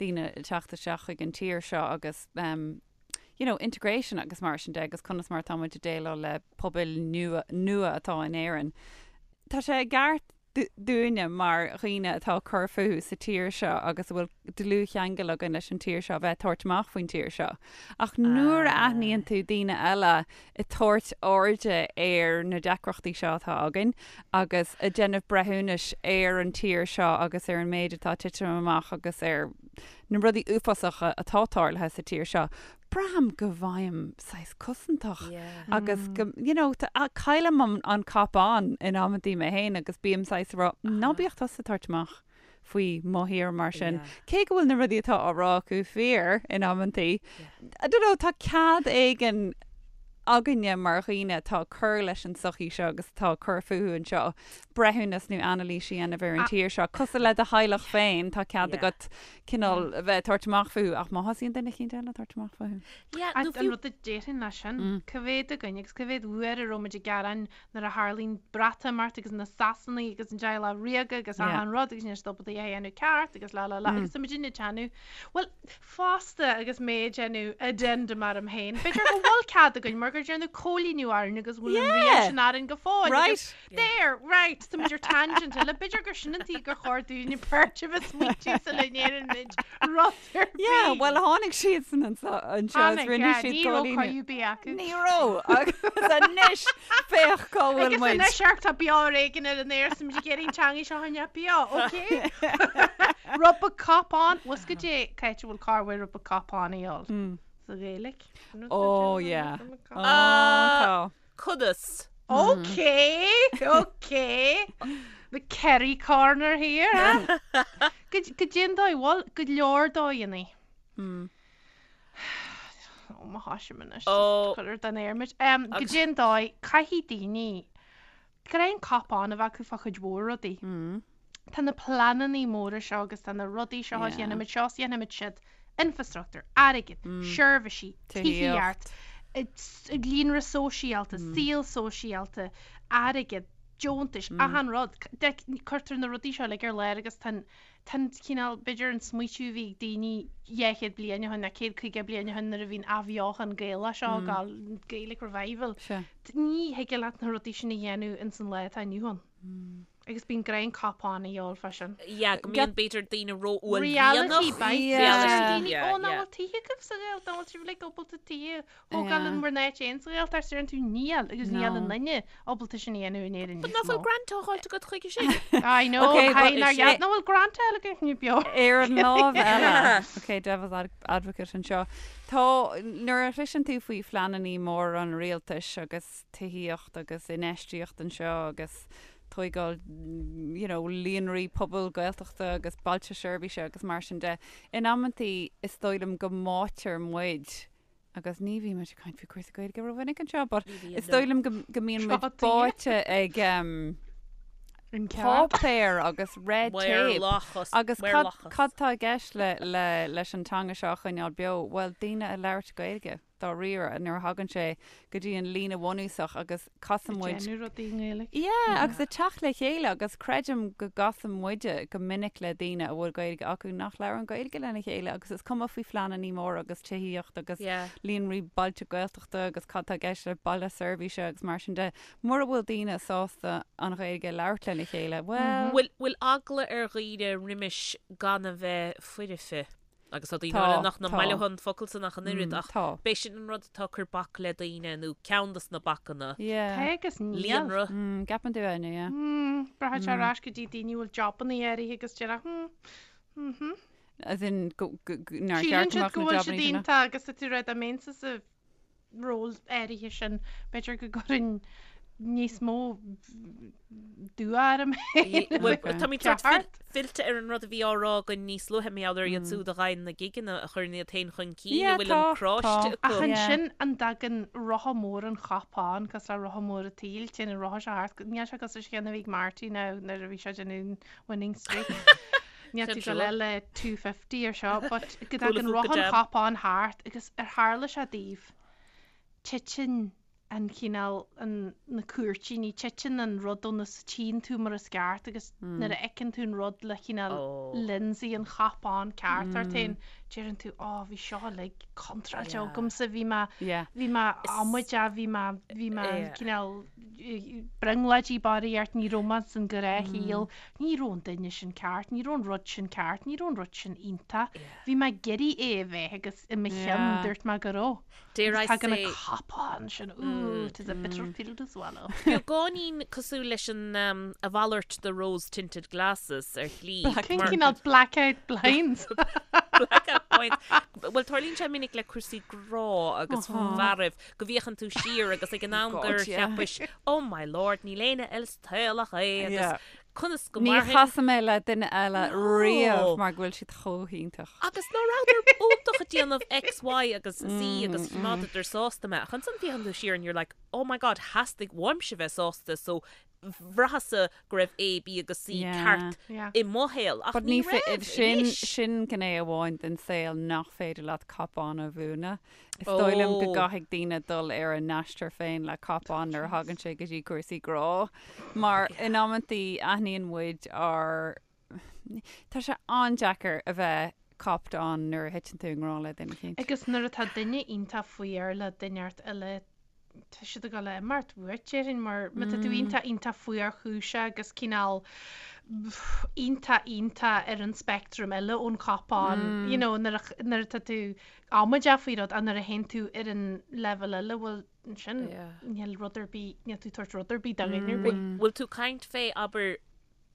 daoine ag teacht isteach chuig an tír seo agus you know, integration agus mar sin de agus conas mar atá muid ag déileáil le pobail nua, nua atá in Éirinn. Tá sé i gceart dúinne mar dhaoine atá ag cur fúthu sa tír seo agus a bhfuil dlúthcheangal againn leis an tír seo a bheith ag tabhairt amach faoin tír seo. Ach nuair a aithníonn tú daoine eile ag tabhairt airde ar na deacrachtaí seo atá againn agus ag déanamh breithiúnais ar an tír seo agus ar an méid atá ag titim amach agus ar na rudaí uafásacha atá tarlaithe sa tír seo, braithim go bhfaighim saghas cosantach agus go, you know, caillim an, an cop on in amantaí mé féin agus bím saghas ag rá, ná bíodh tusa ag tabhairt amach. faoi mo thír mar sin. Cé go bhfuil na rudaí atá á rá acu fíor in amantaí, I don't know, tá cead éigin againne mar dhaoine atá ag cur leis an tsochaí seo agus atá ag cur fúthu anseo, breithiúnas nó anailís a dhéanamh ar an tír seo. Cosúil le do theaghlach féin, tá cead agat cineál a bheith ag tabhairt amach fúthu, ach má thosaíonn duine eicínt eile ag tabhairt amach fúthu. Yeah, nó fiú. An rud a déarfainn leis sin, cá mhéad againn agus cá mhéad uair a raibh muid ag gearán nuair a tharlaíonn Breatimeacht agus na Sasanaigh agus an Teaghlach Ríoga agus achan rud agus níl siad ábalta é a dhéanamh ceart agus la la la agus tá muid ag déanamh bhuel fosta agus mé ag déanamh addendum orm féin b'fhéidir go bhfuil cead againn mar gur déanadh cóilíniú orainn agus bhfuil an rian sin orainn go fóill agus there right tá muid ar tangent eile b'fhéidir gur sin an tuige gur chóir dúinne beirt a bheith smaointiú sula ndéanann muid rud ar bith. Yeah, bhuel tháinig siadsan anseo is Tháinig, rinne yeah, siad ní raibh cóilíniú. cóilíniú ar bith acu. Ní raibh, agus anois féach cá bhfuil Agus muid. anois amharc tá beo ar éigean ar an aer is muid ag iarraidh an teangaidh seo a choinneáil beo, ok? Rud beag cupán, bhfuil 'fhios agat cá háit a bhfuil cá bhfuil rud beag cupán a dhíol? Sa Ghaeilic. Oh yeah. Oh, tá. Conas? Ok, ok. The Kerry corner here, eh? Goidé an dóigh, bhuel, go leor dóigheanna. Ó, má thosaím anois, Ó. cuir den aer muid. Goidé an dóigh, caithfidh daoine, gnáth an cop-on a bheith acu fá chuid mhór rudaí. Tá na pleananna móra seo agus tá na rudaí seo, Yeah. dhéanfaimid seo is dhéanfaimid siúd, infrastruchtúr, airgead, seirbhísí, tithíocht, líonra sóisialta, saol sóisialta, airgead, deontais, achan rud. Cuirtear na rudaí seo uilig ar lár agus tá an tá an cineál, b'fhéidir an smaoitiú a bhí ag daoine 200 bliain ó shin nó 150 bliain ó shin nuair a bhí an athbheochan Gaelach seo ag gabháil, Gaelic Revival. Ní thig leat na rudaí sin a dhéanamh ins an lá atá inniu ann. Agus bíonn gnáth an cop-on a dhíol fá sin. Yeah, go mbíonn b'fhéidir daoine Reality ró-uaillmhianach. bites. Yeah. Reality, Yeah, Ó, nach yeah. bhfuil tithe agaibh sa Ghaeltacht, nach bhfuil sibh uilig ábalta tithe a thógáil in bhur n-áit féin sa Ghaeltacht, deireann tú níl, agus níl No. aon duine ábalta sin a dhéanamh in Éirinn But níos nach bhfuil mó. grant á fháilt agat chuige sin? I know, Okay, but caithfidh nár is é- dheas- nach bhfuil grant eile againn ní beo. Ar an lámh eile, ok, devil's ad- advocate anseo, tá, nuair a chloiseann tú faoi phleanannaí móra an rialtais agus tithíocht agus infheistíocht anseo agus tóigáil you know líonraí pobail Gaeltachta agus bailte seirbhíse agus mar sin de. In amantaí is dóigh liom go mbáitear muid agus ní bhíonn muid ag caint faoi cúrsaí Gaeilge rómhinic anseo but is dóigh liom go go mbíonn muid báite ag um, páipéar agus red tape agus cad cad tá i gceist le le leis an teanga seo a choinneáil beo? Bhuel daoine a labhairt Gaeilge. dáiríre nuair a thagann sé go dtí an líne bhunúsach agus casann muid. Ag déanamh rudaí i nGaeilge. Yeah, agus ag teacht le chéile agus creidim go gcasann muide go minic le daoine a bhfuil Gaeilge acu nach labhrann Gaeilge lena chéile agus is cuma faoi phleanannaí móra agus tithíocht agus líonraí bailte Gaeltachta agus cad tá i gceist le baile seirbhíse agus mar sin de. Mura bhfuil daoine sásta an Ghaeilge a labhairt lena chéile, bhuel. Bhfuil eagla ar dhaoine roimis gan a bheith foirfe? Agus tá daoine Tá, eile nach tá. maith leo an focal san ach an oiread, ach Tá. b'é sin an rud atá ag cur bac le daoine, nó ceann dos na bacanna. Yeah. Tá agus níl. Líonra. Mm, gceapann tú, Áine, yeah. Mm, braitheann sé ar ais go dtí daoine a bhfuil jobanna áirithe agus deir hmm, mhm. As in, go, go, go, nár Síleann cheart go siad mbeadh go na bhfuil siad jobanna sin ann. iontach agus tá tú ag rá dá mbeinnse sa ról áirithe sin, b'fhéidir go gcuirfinn níos mó dua orm féin. Bhuel, táimid sort Ceart. fillte ar an rud a bhí á rá againn níos luaithe, mar gheall ar iad siúd a gheibheann na gigeanna a chuireann iad féin chun cinn, a Yeah, bhfuil an tá, cráiste tá. acu. Ach Yeah. ansin an dtagann rotha mór an chop-on, cosúil le rotha mór an tsaoil, téann an rotha seo thart, níl sé cosúil leis an cheann a bhí ag Marty now nuair a bhí sé ag déanamh winning streak. Níl tú Sin dul le 250 ar seo, but go dtagann Cúla rotha fúca an jam. chop-on thart agus ar tharla sé daoibh, titeann an cineál, an, na cúirtíní, titeann an rud ó na, tchíonn tú mar is ceart agus nuair a fheiceann tú an rud le cineál Ó. lionsaí an chop-on ceart ort féin, deireann tú, ó, bhí seo uilig contráilte Yeah. agamsa, bhí mé, Yeah. bhí mé amaideach, bhí mé, bhí mé Yeah. cineál brionglóidí barraíocht, ní raibh mé san ghnáthshaol, ní raibh an duine sin ceart, ní raibh an rud sin ceart, ní raibh an rud sin iontach. Bhí mé ag iarraidh é a bheith agus i mo cheann dúirt mé go raibh. Dare I Agus tagann say- an cop-on sin, ooh, it is a bitter pill to swallow. Beagáinín cosúil leis an a mhalairt de rose tinted glasses ar shlí. Cén Mar- cineál blackout blinds? Blackout blinds. Bhuel, tarlaíonn sé minic le cúrsaí grá agus fearaibh go bhféachann tú siar agus ag an am gur cheapais, oh my lord, níl éinne eile sa tsaol ach é agus Yeah. Conas go Ní mairfinn? chasfaidh mé le duine eile No. riamh mar go bhfuil siad chomh hiontach. Agus ná rabhadar iontach ag déanamh X, Y agus Z agus choimeádadar sásta mé. Ach ansan féachann tú siar and you're like, oh my god, theastaigh uaimse bheith sásta so bhraitheas-sa go raibh A, B agus C Yeah. ceart Yeah. i mo shaol. Ach But ní ní fé- raibh sin, anois. sin gné amháin den saol nach féidir leat cop-on a mhúineadh. Is dóigh liom go Oh. gcaithfidh daoine dul ar a n-aistear féin le cop-on nuair a thagann sé go dtí cúrsaí grá, mar in amantaí aithníonn muid ár Tá sé an-deacair a bheith copped on nuair a thiteann tú i ngrá le duine eicínt. Agus nuair atá duine iontach fuar le duine inteacht eile tá siad ag dul a imeacht uait, déarfainn, mar má tá tú iontach, iontach fuarchúiseach agus cineál iontach, iontach ar an speictream eile ón cop-on, you know, nuair a, nuair atá tú amaideach faoi rud ach nuair a théann tú ar an leibhéal eile, bhuel, ansin níl rud ar bith, níl tú ag tabhairt rud ar bith do dhuine ar bith. Bhfuil tú ag caint fé, abair,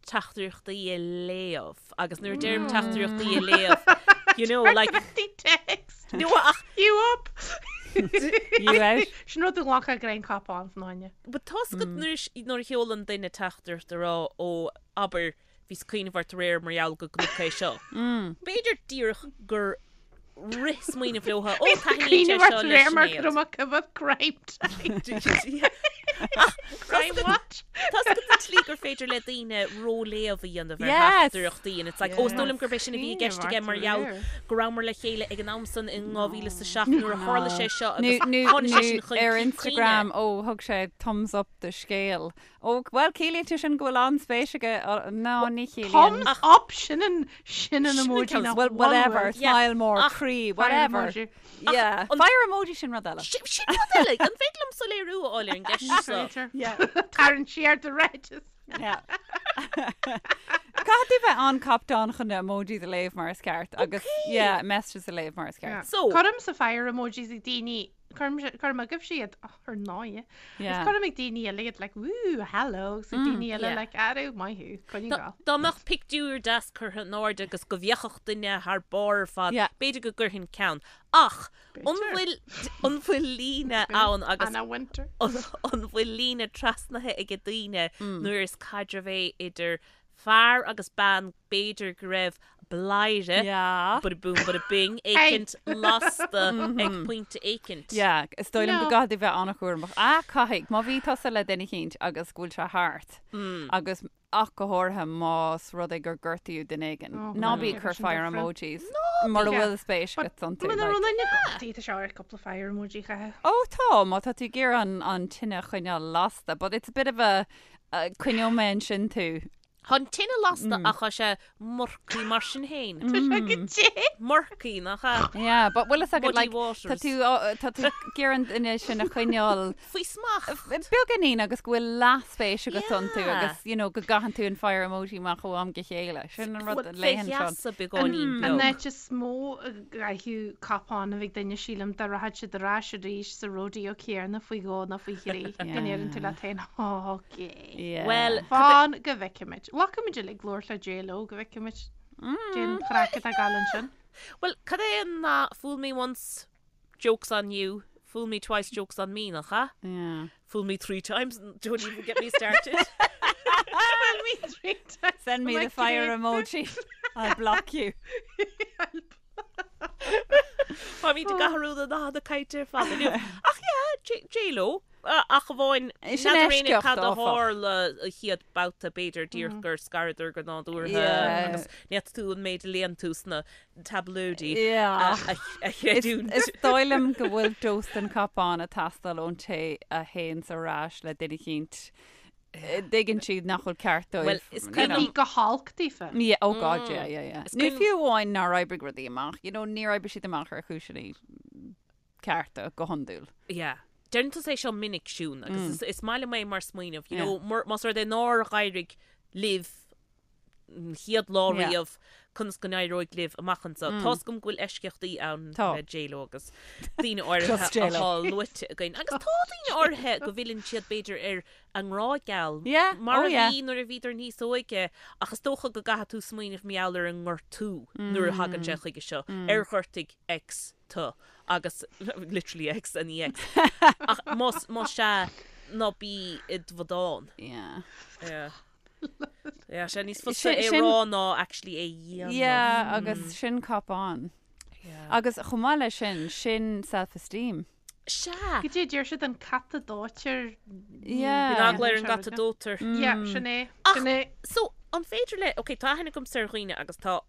teachtaireachtaí a léamh agus nuair a deirim teachtaireachtaí a léamh, you know, like, Teachtaireachtaí text. No, ach You up! You out? Sin rud a ghlacfadh greim cop-on fan fháinne. But tá's agat nuair a nuair a sheolann duine teachtaireacht a rá ó abair bhíos ag cuimhneamh ort aréir mar gheall go gconac é seo. B'fhéidir díreach gur rith smaoineamh leo, ó taitníonn sé seo le Sinéad. Go raibh coimhead crime time. Crime what? Tá's agat an tslí gur féidir le daoine róléamh a dhéanamh ar Yes. theachtaireachtaí and it's like, ó, is dóigh liom gurb é sin a bhí i gceist aige mar gheall go rabhamar le chéile ag an am san in 2007 nuair a tharla sé seo Nó agus nó tháinig sé sin nó chun ar cinn Instagram, ó, thug sé thumbs up do scéal. Ó, bhuel, ciallaíonn sé sin go bhfuil an-spéis aige, no, ní chiallaíonn. Thumbs up, sin an, sin an emoji nach Well, whatever, bhfuil. smile more, Ach, croí, Fire whatever. emoji. Yeah, fire emoji sin rud eile. Sin sin rud eile, an féidir liom soiléiriú a fháil ar an gceist seo? Féidir. Yeah. Tarraing siar do ráiteas. Yeah. Caithfidh tú bheith an-copped on chun na emojis a léamh mar is ceart agus, yeah, messages a léamh mar is ceart. So- Cuirimse fire emojis ag daoine Cuirim cuirim agaibhse iad ar ndóigh. Is cuirim ag daoine eile iad like woo hello agus ag daoine eile like arú maith thú coinnigh Dá go. dá mbeadh pictiúr deas curtha in airde agus go bhféachfadh duine thar barr ar fad, Yeah. b'fhéidir go gcuirfinn ceann. Ach an bhfuil an bhfuil líne ann agus Anna Wintour. an an bhfuil líne trasnaithe ag daoine nuair is caidreamh é idir fear agus bean b'fhéidir go raibh bladhaire, Yeah. bada boom bada bing, éicint lasta ag pointe éicint. Yeah, is dóigh liom go No. gcaithfidh tú bheith an-chúramach. Ah, caithfidh. Má bhí tusa le duine eicínt agus go bhfuil sé thart agus ach go háirithe más rud é gur gortaíodh duine éigin. Oh, Ná bí yeah. ag cur Sin fire different. emojis mura Yeah. bhfuil spéis agat iontu. Muna like. raibh duine gortaithe tá sé ar cúpla fire emoji chaithfidh. Ó tá, má tá tú ag iarraidh an, an tine a choinneáil lasta, but it's a bit of a, uh, coinneoidh mé ansin tú. Tá an tine lasta ach tá sé murky mar sin féin. Tá sé go dté. Murky, nach ea? Yeah, but bhfuil fhios agat Muddy like, tá waters. tú á- tá tú ag iarraidh an duine sin a choinneáil Faoi smacht. beagáinín agus go bhfuil leathspéis agat iontu Yeah. agus you know, go gcaitheann tú an fire emoji amach ó am go chéile. Sin an rud a Fé léann seo. gheasa beagáinín An beag. áit is mó a gcaithfeadh cop-on a bheith ag duine sílim dá rachadh siad ar ais arís sa rodeo céanna faoi dhó nó faoi thrí. Go ndeireann tú leat féin, "Ó, okay. Yeah. Bhuel, Fan go bhfeicfimid. Bhfaca muid uilig labhairt le J-Lo go bhfeicfimid. Cén chraic atá ag gabháil ansin. Bhuel, cad é an nath fool me once, joke's on you, fool me twice, joke's on me, nach ea? Yeah. Fool me throe times, don't even get me started. Fool me throe times. Send me Am I the fire correct? emoji. I'll block you. Táimid ag athrú na nathanna cainte ar fad inniu. Ach yeah, J-Lo, ach amháin Sin n'fheadar éinne eisceacht, cad a áfach. tharla an chéad babhta b'fhéidir díreach gur scaradar go nádúrtha Yeah. agus ní fhéadfadh tú an méid a léann tú sna tablóidí Yeah. a chreidiúint. Is dóigh liom go bhfuil dós den cop-on ag teastáil ón té a théanns ar ais le duine eicínt. dtuigeann siad nach bhfuil ceart dóibh. Well, is you cuimhin know. Bhí go holc daofa. Yeah, oh God, yeah, yeah, yeah. Is Nó cuimhin- fiú amháin nár oibrigh rudaí amach, you know, níor oibrigh siad amach ar chúiseanna cearta go hiondúil. Yeah. Deireann tusa é seo minic, Siún, agus is, is maith liom é mar smaoineamh, you Yeah. know, mur, más rud é nár éirigh libh an chéad lá Yeah. riamh, conas go n-éireoidh libh amach anseo. Tá's agam go bhfuil eisceachtaí ann Tá. le J-Lo agus daoine áirithe Just J-Lo. atá luaite againn. Agus tá daoine áirithe go bhfilleann siad b'fhéidir ar a ngrá geal Yeah, mar oh a yeah. bhí nuair a bhíodar níos óige ach is dócha go gcaithfidh tú smaoineamh mar gheall ar an ngortú nuair a thagann sé chuige seo, ar ghortaigh X tú agus literally X and EX ach más más ea ná bí i do bhradán. Yeah. Yeah. Yeah, sé níos fusa é rá ná actually é dhéanamh. Yeah, agus sin cop-on. Yeah. Agus chomh maith leis sin, sin self-esteem. Sea. Goidé a deir siad an cat a dóitear. Yeah. Bíonn eagla ar an gcat a dóitear. Yeah, sin é. Ach, Sin é. so, an féidir le, ok, tá aithne agamsa ar dhaoine agus tá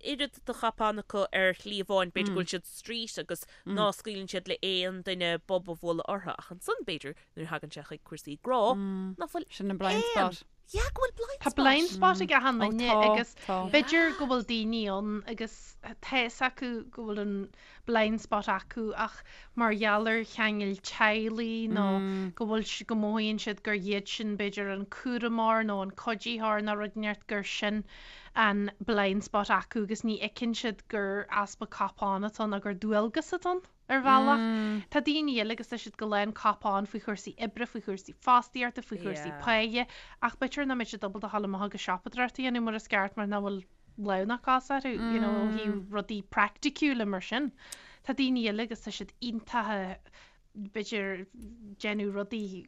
oiread de chop-on acu ar shlí amháin, b'fhéidir go bhfuil siad street agus ná scaoileann siad le aon duine bob a bhualadh orthu, ach ansan, b'fhéidir, nuair a thagann sé chuig cúrsaí grá, ná fuil Sin an blind aon spot. Yeah, go bhfuil blind Tá spot. blind spot ag achan Ó duine tá, agus tá. b'fhéidir go bhfuil daoine ann agus tá fhios acu go bhfuil an blind spot acu ach mar gheall ar cheangail teaghlaigh nó go bhfuil si- go mothaíonn siad gur iad sin b'fhéidir an cúramóir nó an cuiditheoir nó rud inteacht gur sin an blind spot acu agus ní fheiceann siad gur easpa cop-on atá ann nó gur dualgas atá ann. Ar bhealach, tá daoine eile agus tá siad go lán cop-on faoi chúrsaí oibre, faoi chúrsaí fostaíochta, faoi chúrsaí páighe, ach b'fhéidir nach mbeidh siad ábalta a ghabháil amach agus siopadóireacht a dhéanamh mar is ceart mar nach bhfuil lámh ná cos orthu, you know, ó thaobh rudaí praiticiúla mar sin. Tá daoine eile agus tá siad iontach b'fhéidir déanamh rudaí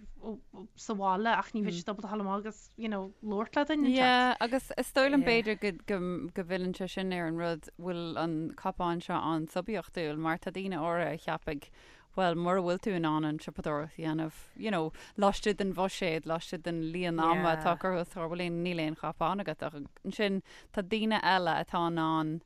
sa bhaile ach ní bheidh siad ábalta a ghabháil amach agus, you know, labhairt le duine inteacht. Yeah, agus is dóigh liom b'fhéidir go, go, go bhfilleann sé sin ar an rud, bhfuil an cop-on seo an-suibiachtúil mar tá daoine áirithe a cheapfaidh, bhuel, mura bhfuil tú in ann an tsiopadóireacht a dhéanamh, you know, laistigh den bhuiséad, laistigh den líon ama atá curtha os do chomhair, bhuel, níl aon chop-on agat ach ansin tá daoine eile atá in ann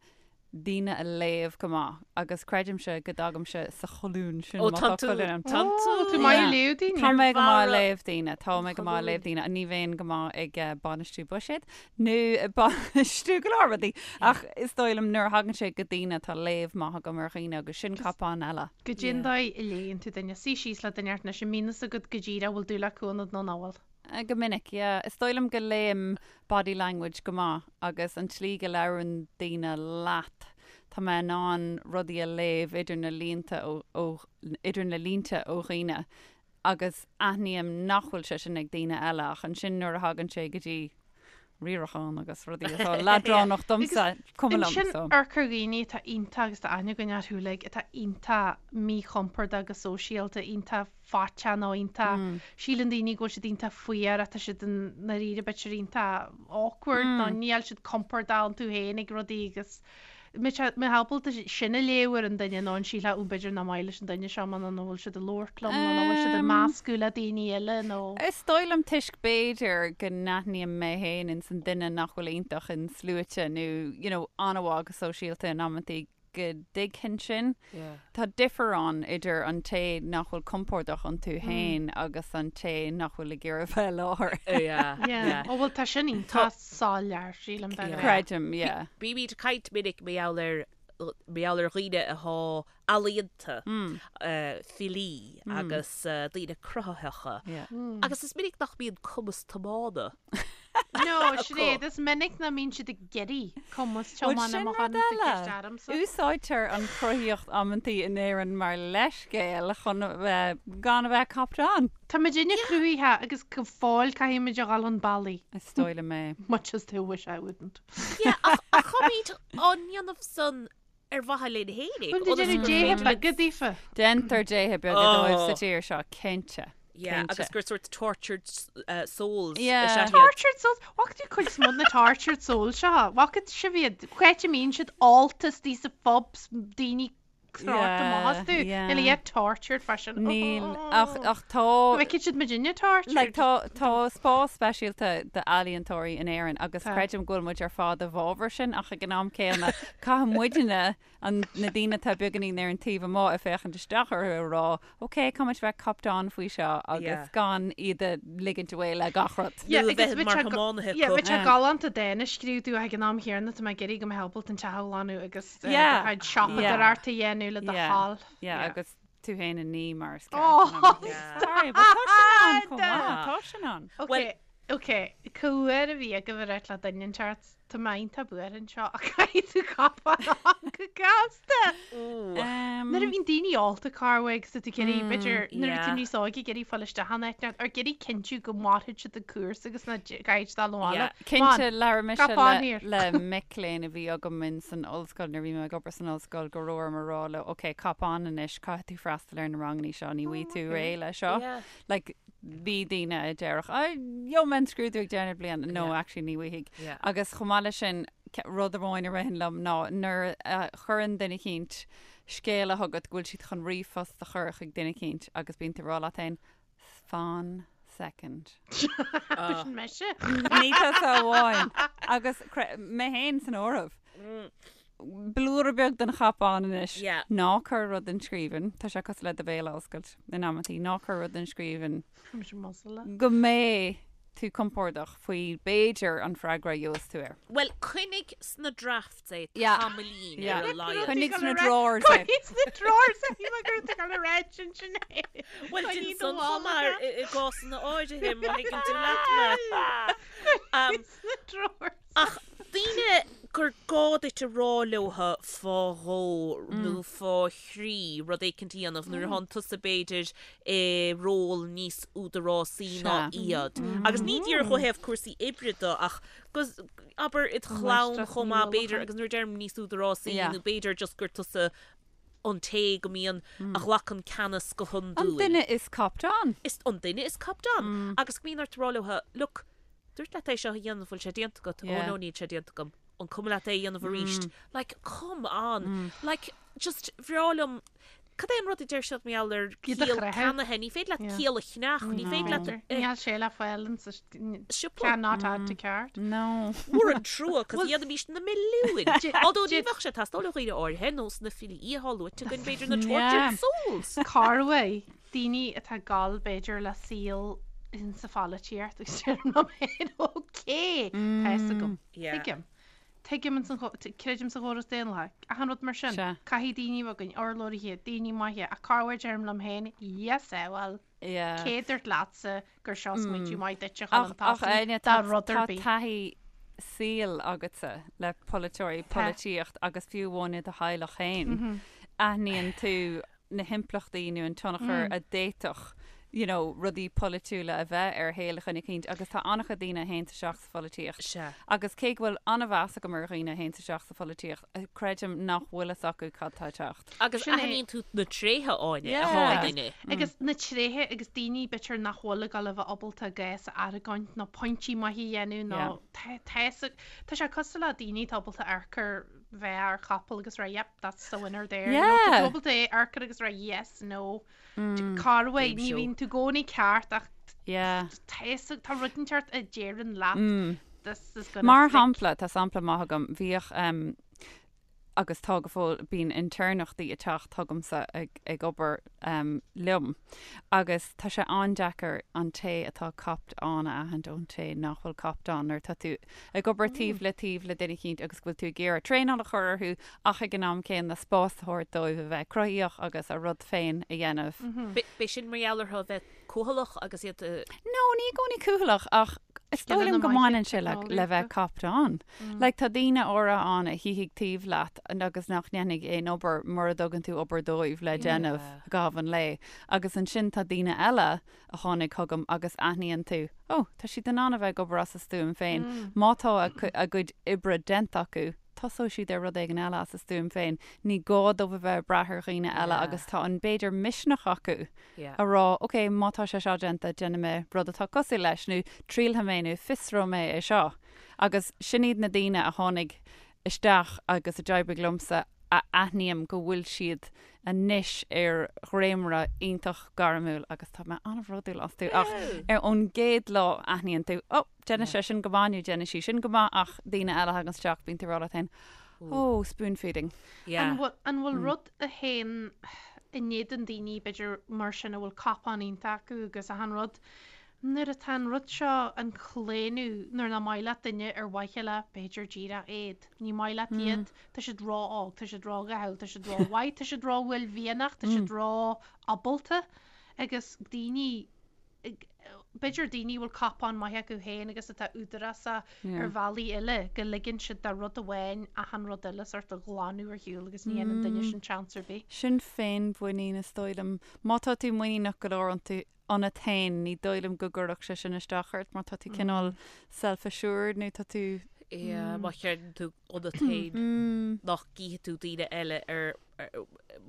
daoine a léamh go maith agus creidimse go dtagaimse sa cholún sin Ó, má tá tá tú, colún ann. tá tú. Tá tú maith ag léamh daoine. Tá mé go maith ag Barra. léamh daoine, tá mé go maith ag léamh daoine, ní bheinn go maith ag bainistiú buiséad nó ag bainistiú go leor rudaí ach is dóigh liom nuair a thagann sé go daoine tá léamh maith agam ar dhaoine agus sin cop-on eile. Goidé an dóigh a léann tú duine, suí síos le duine anois, an mbíonn fhios agat go díreach bhfuil dúil acu ionat nó nach bhfuil. Go minic, yeah. Is dóigh liom go léim body language go maith agus an tslí go labhrann daoine leat, tá mé in ann rudaí a léamh idir na línte ó, ó, idir na línte ó dhaoine agus aithním nach bhfuil sé sin ag daoine eile ach ansin nuair a thagann sé go dtí riarachán agus rudaí atá leadránach domsa, cuma liom, Ansin so. amharc ar dhaoine atá iontach agus tá aithne againn orthu uilig atá iontach míchompordach go sóisialta, iontach faiteach nó iontach, síleann daoine go bhfuil siad iontach fuar ach tá siad i ndáiríre b'fhéidir iontach awkward nó níl siad compordach iontu féin ag rudaí agus mbeifeá ábalta sin a léamh ar an duine nó an sílfeá ó b'fhéidir nach maith leis an duine seo mé nó nach bhfuil siad ag labhairt liom nó nach bhfuil siad ag meascadh le daoine eile nó. Is dóigh liom toisc b'fhéidir go n-aithním mé féin ins an duine nach bhfuil iontach in sluaite nó you know an-mhaith go sóisialta in amantaí go dtuigfinn sin. Tá difear ann idir an té nach bhfuil compordach iontu féin agus an té nach bhfuil ag iarraidh bheith i láthair. Yeah. Ó bhuel tá sin iontach soiléir, sílim de ghnáth. Creidim, yeah. Bímid ag caint minic mar gheall ar mar gheall ar dhaoine atá ealaíonta, filí agus daoine cruthaitheacha. Agus is minic nach mbíonn cumas tiomána No, Sinéad, is minic nach mbíonn siad ag iarraidh cumas Bhuel, tiomána sin má rud tháinig tú eile. ceist ormsa. Úsáidtear an chruthaíocht amantaí in Éirinn mar leithscéal chun a bheith, gan a bheith copped on. Tá muidinne cruthaitheach agus go fóill caithfidh muid a dhul chun bealaigh. Is dóigh liom é. Much as they wish I wouldn't. Yeah, ach ach táimid á ndéanamh san ar mhaithe linn fhéinig. Bhuel, déantar déithe beaga daofa. Déantar déithe beaga dóibh sa tír seo, cinnte. Yeah, agus gur sort tortured souls is Yeah. ea iad. Tortured souls? Bhfaca tú cuid is mó de na tortured souls seo? Bhfaca sibh iad? Cá háit a mbíonn siad ólta istigh sa phubs, daoine crochta amach astu. Yeah, yeah. Níl iad tortured freisin. Níl, ach, ach tá... Go bhfeicfidh siad muidinne tortured. Like, tá, tá spás speisialta d'ealaíontóirí in Éirinn agus Tá. creidim go bhfuil muid ar fad i bhfabhar sin ach ag an am céanna caithfidh muidne, an, na daoine atá beagáinín ar an taobh amuigh ag féachaint isteach orthu a rá ok, caithfidh muid bheith copped on faoi seo agus Yeah. gan iad a ligint away le gach rud. Yeah, Nó a agus bheith bheadh mar sé go- thiománaithe yeah, acu. bheadh sé Yeah. galánta dán a scríobh tú ach ag an am chéanna tá mé ag iarraidh go mbeidh ábalta an teach a ghlanadh agus Yeah. do chuid siopadóireacht a dhéanamh le do Yeah. thoil. Yeah, agus tú féin a ní mar is ceart. Oh, Sorry, but tá sin ann chomh maith, tá sin ann. Ok, ok, cá huair a bhí agaibh ag ráit le duine inteacht, tá mé iontach buartha anseo ach caithfidh tú cop-on on go gasta. Nuair a bhíonn daoine ólta corruair agus tá tú ag iarraidh, b'fhéidir, nuair a bhí tú níos óige ag iarraidh fáil isteach in áit inteacht, or ag iarraidh cinntiú go mairfidh siad an cúrsa agus nach gcaithfidh siad dul abhaile. Cinnte, labhair mise Cop on here. le mic léinn a bhí agam in san ollscoil nuair a bhí mé ag obair san ollscoil go raibh orm a rá leo, ok, cop on anois, caithfidh tú freastal ar na ranganna seo, ní bhfaighidh tú réidh le seo. Like, Bhí daoine a déarfadh, "Á, gheobhaidh mé an scrúdú ag deireadh na bliana." No, actually ní bhfaighidh. Agus chomh maith leis sin, rud amháin a ritheann liom ná nuair a chuireann duine eicínt scéala chugat go bhfuil siad chun ríomhphost a chur chuig duine eicínt agus bíonn tú ag rá leat féin, fan second. Sin mise. Ní tusa amháin. Agus mé féin san áireamh. Blúire beag den chop-on anois. Ná cuir rud in scríbhinn. Tá sé cosúil le do bhéal a oscailt in amantaí. Ná cuir rud in scríbhinn. Go mbeidh tú compordach faoi b'fhéidir an freagra a gheobhas tú air. Bhuel, coinnigh sna drafts é tamaillín ar a laghad. Coinnigh sna drawers é. Coinnigh sna drawers é, mar go raibh tú ag dul a ráit ansin é. Bhuel, déan san chomh maith i gcásanna áirithe, má thuigeann tú leat mé. Coinnigh sna drawers. Ach daoine gur gá duit a rá leotha fá dhó nó fá thrí rud éicint a dhéanamh nuair atánn tusa b'fhéidir i ról níos údarásaí ná iad. Agus ní díreach ó thaobh cúrsaí oibre de ach go, abair, id chlann chomh maith b'fhéidir agus nuair a deirim níos údarásaí nó b'fhéidir just gur tusa an té go mbíonn, a ghlacann ceannas go hiondúil. An duine is copped on. Is an duine is copped on. Agus go mbíonn ort a rá leo, look, dúirt leat é seo a dhéanamh, bhfuil sé déanta agat? Oh no, níl sé déanta agam. An cuma leat é a dhéanamh arís? Like, come on. Like, just bhreá liom, cad é an rud a deir siad mar gheall ar Iad a ciall chreathadh. ceannaithe? Ní féidir leat ciall a cheannach, ní féidir leat Níl sé le fáil in sa siopa. Cannot add to cart. No. Mór an trua, cos dhéanfaimis na milliúin. Although ní bheadh sé ag teastáil ó dhaoine áirithe, nós na filí atá luaite againn, b'fhéidir na tortured souls. Corruair, daoine atá ag gabháil b'fhéidir le saol insa pholaitíocht agus deirim liom féin, ok, tá fhios agam, tuigim. Tuigim ins an, creidim sa chóras daonlathach, achan rud mar sin. Caithfidh daoine a bheith againn, urlabhraithe, daoine maithe, ach corruair deirim liom féin, yes, eh, bhuel, cé a dúirt leatsa gur seo smaointiú maith duit a chur chun tosaigh dá rud ar Tá bith? taithí saoil agatsa le polaiteoirí, polaitíocht agus fiú amháin i do theaghlach féin. Aithníonn tú na himpleachtaí nó an tionchar a d'fhéadfadh you know, rudaí polaitiúla a bheith ar shaol dhuine eicínt agus tá an-chuid daoine a théanns isteach sa pholaitíocht. Sea. Agus cé go bhfuil an-mheas agam ar dhaoine a théanns isteach sa pholaitíocht, creidim nach bhfuil fhios acu cad tá ag teacht. Agus Sin é. aithníonn tú na tréithe Áine Yeah. atá i Agus- nduine. Agus na tréithe agus daoine b'fhéidir nach bhfuil ag dul a bheith ábalta gás a argóint nó pointí maithe a dhéanamh nó Yeah. tá tá fhios ag- tá sé cosúil le daoine atá ábalta amharc ar bheith ar chapall agus rá yep, that's the winner there. You know, Yeah. tá tú ábalta amharc air agus rá yes, no. Corruair, Game ní show. bhíonn tú i gcónaí ceart ach Yeah. tá fhios ag- tá rud inteacht a deireann leat this is gonna Mar stick. shampla, tá sampla maith agam, bhíodh um, agus tá go fóill, bíonn intéirneachtaí ag teacht chugamsa ag, ag obair um, liom agus tá sé an-deacair an té atá copped on a aithint ón té nach bhfuil copped on nuair atá tú ag obair taobh le taobh le duine eicínt agus go bhfuil tú ag iarraidh traenáil a chur orthu ach ag an am céanna spás a thabhairt dóibh a bheith cruthaíoch agus a rud féin a dhéanamh. B'é sin mar gheall orthu a bheith cúthaileach agus iad a. No, ní i gcónaí cúthaileach ach is dóigh liom go mbaineann sé le le bheith copped on. Like tá daoine áirithe ann a shuífidh taobh leat agus nach ndéanfaidh aon obair mura dtugann tú obair dóibh le déanamh i gcaitheamh an lae. Agus ansin tá daoine eile a tháinig chugam agus aithníonn tú, oh, tá siad in ann a bheith ag obair as a stuaim féin. Má tá a gcuid oibre déanta acu, tosóidh siad ar rud éigin eile as a stuaim féin. Ní gá dóibh a bheith ag brath ar dhaoine eile agus tá an, b'fhéidir, misneach acu a rá, ok, má tá sé seo déanta, déanfaidh mé rud atá cosúil leis nó triailfidh mé nó fiosróidh mé é seo. Agus sin iad na daoine a tháinig isteach agus a d'oibrigh liomsa a aithním go bhfuil siad anois ar dhréimire iontach gairmiúil agus tá mé an-bhródúil astu ach ar ón gcéad lá aithníonn tú oh déanann sé sin go maith nó déanann sí sin go maith ach daoine eile a thagann isteach bíonn tú ag rá leat féin oh spoon feeding. An bhfuil an bhfuil rud a théann in éadan daoine b'fhéidir mar sin a bhfuil cop-on iontach acu agus achan rud Nuair atá an rud seo, an claonadh, nuair nach maith leat duine ar mhaithe le, b'fhéidir díreach éad. Ní maith leat iad, tá siad ró-óg, tá siad ró-dhathúil, tá siad ró-mhaith, tá siad ró-uaillmhianach, tá siad ró-ábalta agus daoine, b'fhéidir daoine a bhfuil cop-on maith acu féin agus atá údarásach ar bhealaí eile, go ligeann siad do rud amháin achan rud eile sort a ghlanadh ar shiúl agus ní dhéanann duine sin seans ar bith. Sin féinmhuinín is dóigh liom. Má tá tú muiníneach go leor iontu, ionat féin, ní dóigh liom go gcuirfeadh sé sin isteach ort mar tá tú cineál self-assured nó tá tú. Yeah, má chreideann tú ionat féin nach gcífidh tú daoine eile ar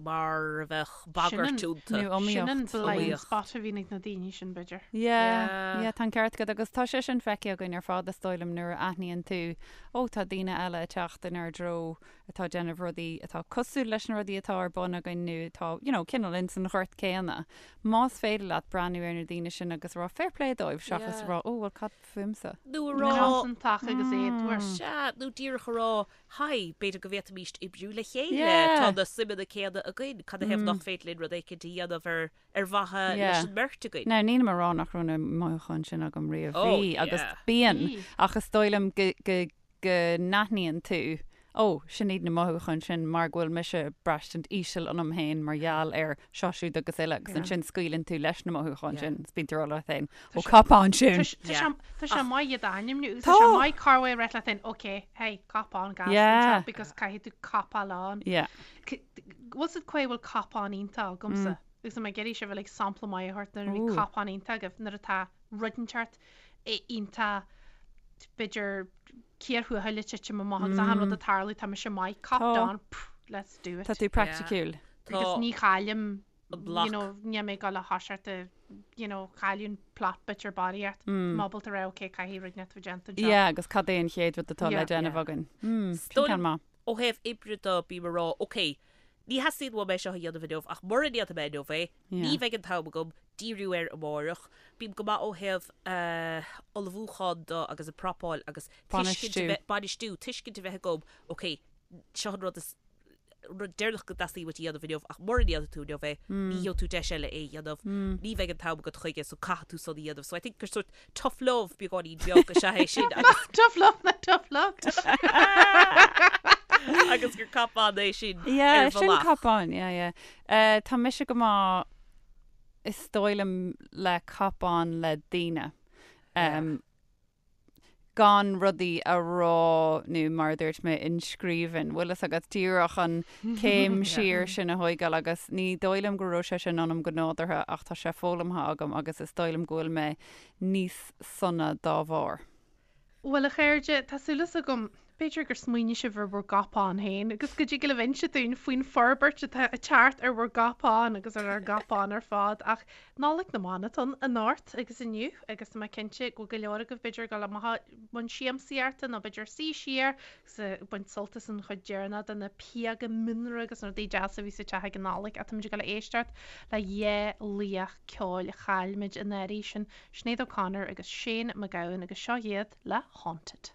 Mar a bheadh bagairt iontu. Nó iomaíocht. Sin an blind spot a bhíonn ag na daoine sin, b'fhéidir. Yeah, yeah, tá an ceart agat agus tá sé sin feicthe againn ar fad is dóigh liom nuair a aithníonn tú, ó tá daoine eile ag teacht inár dtreo atá ag déanamh rudaí atá cosúil leis na rudaí atá ar bun againn nó atá, you know, cineál ins an ghort céanna. Más féidir leat breathnú ar na daoine sin agus rá fair play dóibh seachas Yeah. rá, ó bhuel cad fúmsa? Nó a rá. Cosantach agus éadmhar. Sea, nó díreach a rá, Haigh, b'fhéidir go bhféadfaimíst oibriú le chéile, Yeah. tá na suimeanna céanna againn, cad ina thaobh nach féidir linn rud éicint a dhéanamh ar ar mhaithe Yeah. leis an mbeirt againn? Now, nílim a rá nach raibh na mothúcháin sin agam riamh. Oh, Bhí, agus yeah. bíonn, Bhí. ach is dóigh liom go, go, go n-aithníonn tú, ó, sin iad na mothúcháin sin mar go bhfuil mise ag braistint íseal ionam féin mar gheall ar seo siúd agus uile agus ansin scaoileann tú leis na mothúcháin sin is bíonn tú ag rá leat féin, ó cop on sin! Tá sé maith iad a ainmniú agus Tá! tá sé maith corruair a rá leat féin, ok, hey, cop on gas Yeah. anseo because caithfidh tú copáil on. Yeah. Bhfuil 's agat cá bhfuil cop on iontach agamsa agus tá mé ag iarraidh sibh uilig sampla maith a thabhairt nuair a bhí Ooh. cop on iontach agaibh nuair atá rud inteacht iontach b'fhéidir cíor thuathail ag titim amach agus achan rud ag tarlú tá mise maith copped Tá. on pff, let's do it. Tá tú praiticiúil. Agus ní chaillim an bloc. you know, níl mé ag dul a thoiseacht a you know, cailleadh an plot bit ar barraíocht. Mm. Tá mé ábalta rá ok caithfidh rud inteacht a bheith déanta anseo. Yeah, agus cad é an chéad rud atá le Yeah. déanamh Yeah. againn? Mm, sin Dóigh ceann maith. Ó thaobh oibre de bím ag rá ok, ní theastaíonn uaim é seo a dhéanamh inniu ach mura ndéanfaidh mé inniu é, ní Yeah. bheidh an t-am agam díriú air amárach. Bím go maith ó thaobh ullmhúchán de agus an prapáil agus tuiscint a Bainistiú. bheith, bainistiú, tuiscint a bheith agam ok, seo an rud is rud deireanach go dteastaíonn uait a dhéanamh inniu ach mura ndéanfaidh tú inniu é, ní gheobhaidh tú deis eile é a dhéanamh, ní bheidh an t-am agat chuige so caithfidh tú san a dhéanamh. So I think gur sort tough love beagáinín beag is ea é sin agus Tough love na tough luck. agus gur cop on é sin Yeah, ar sin bhealach. cop on, yeah, yeah. Uh, tá mise go maith is dóigh liom le cop on le daoine. Um, gan rudaí a rá nó mar a dúirt mé in scríbhinn. Bhfuil fhios agat díreach an céim siar sin a thóigeáil agus ní dóigh liom go raibh sé sin ionam go nádúrtha ach tá sé foghlamtha agam agus is dóigh liom go bhfuil mé níos sona dá bharr. Bhuel, a chairde, tá súil agam, b'fhéidir gur smaoinigh sibh ar bhur gcop on féin agus go dtig libh inse dúinn faoin forbairt atá ag teacht ar bhur gcop on agus ar ár gcop on ar fad ach Nollaig na mBan atá ann anocht agus inniu agus tá mé cinnte go bhfuil go leor agaibh b'fhéidir ag dul amach i mbun siamsaíochta nó b'fhéidir suí siar agus ag baint sult as an chuid deireanach de na píoga mianra agus na rudaí deasa a bhí sa teach ag an Nollaig ach táimid ag dul a éisteacht le dhá laoch ceoil a chaill muid anuraidh, sin Sinéad O'Connor agus Shane MacGowan agus seo iad le Haunted.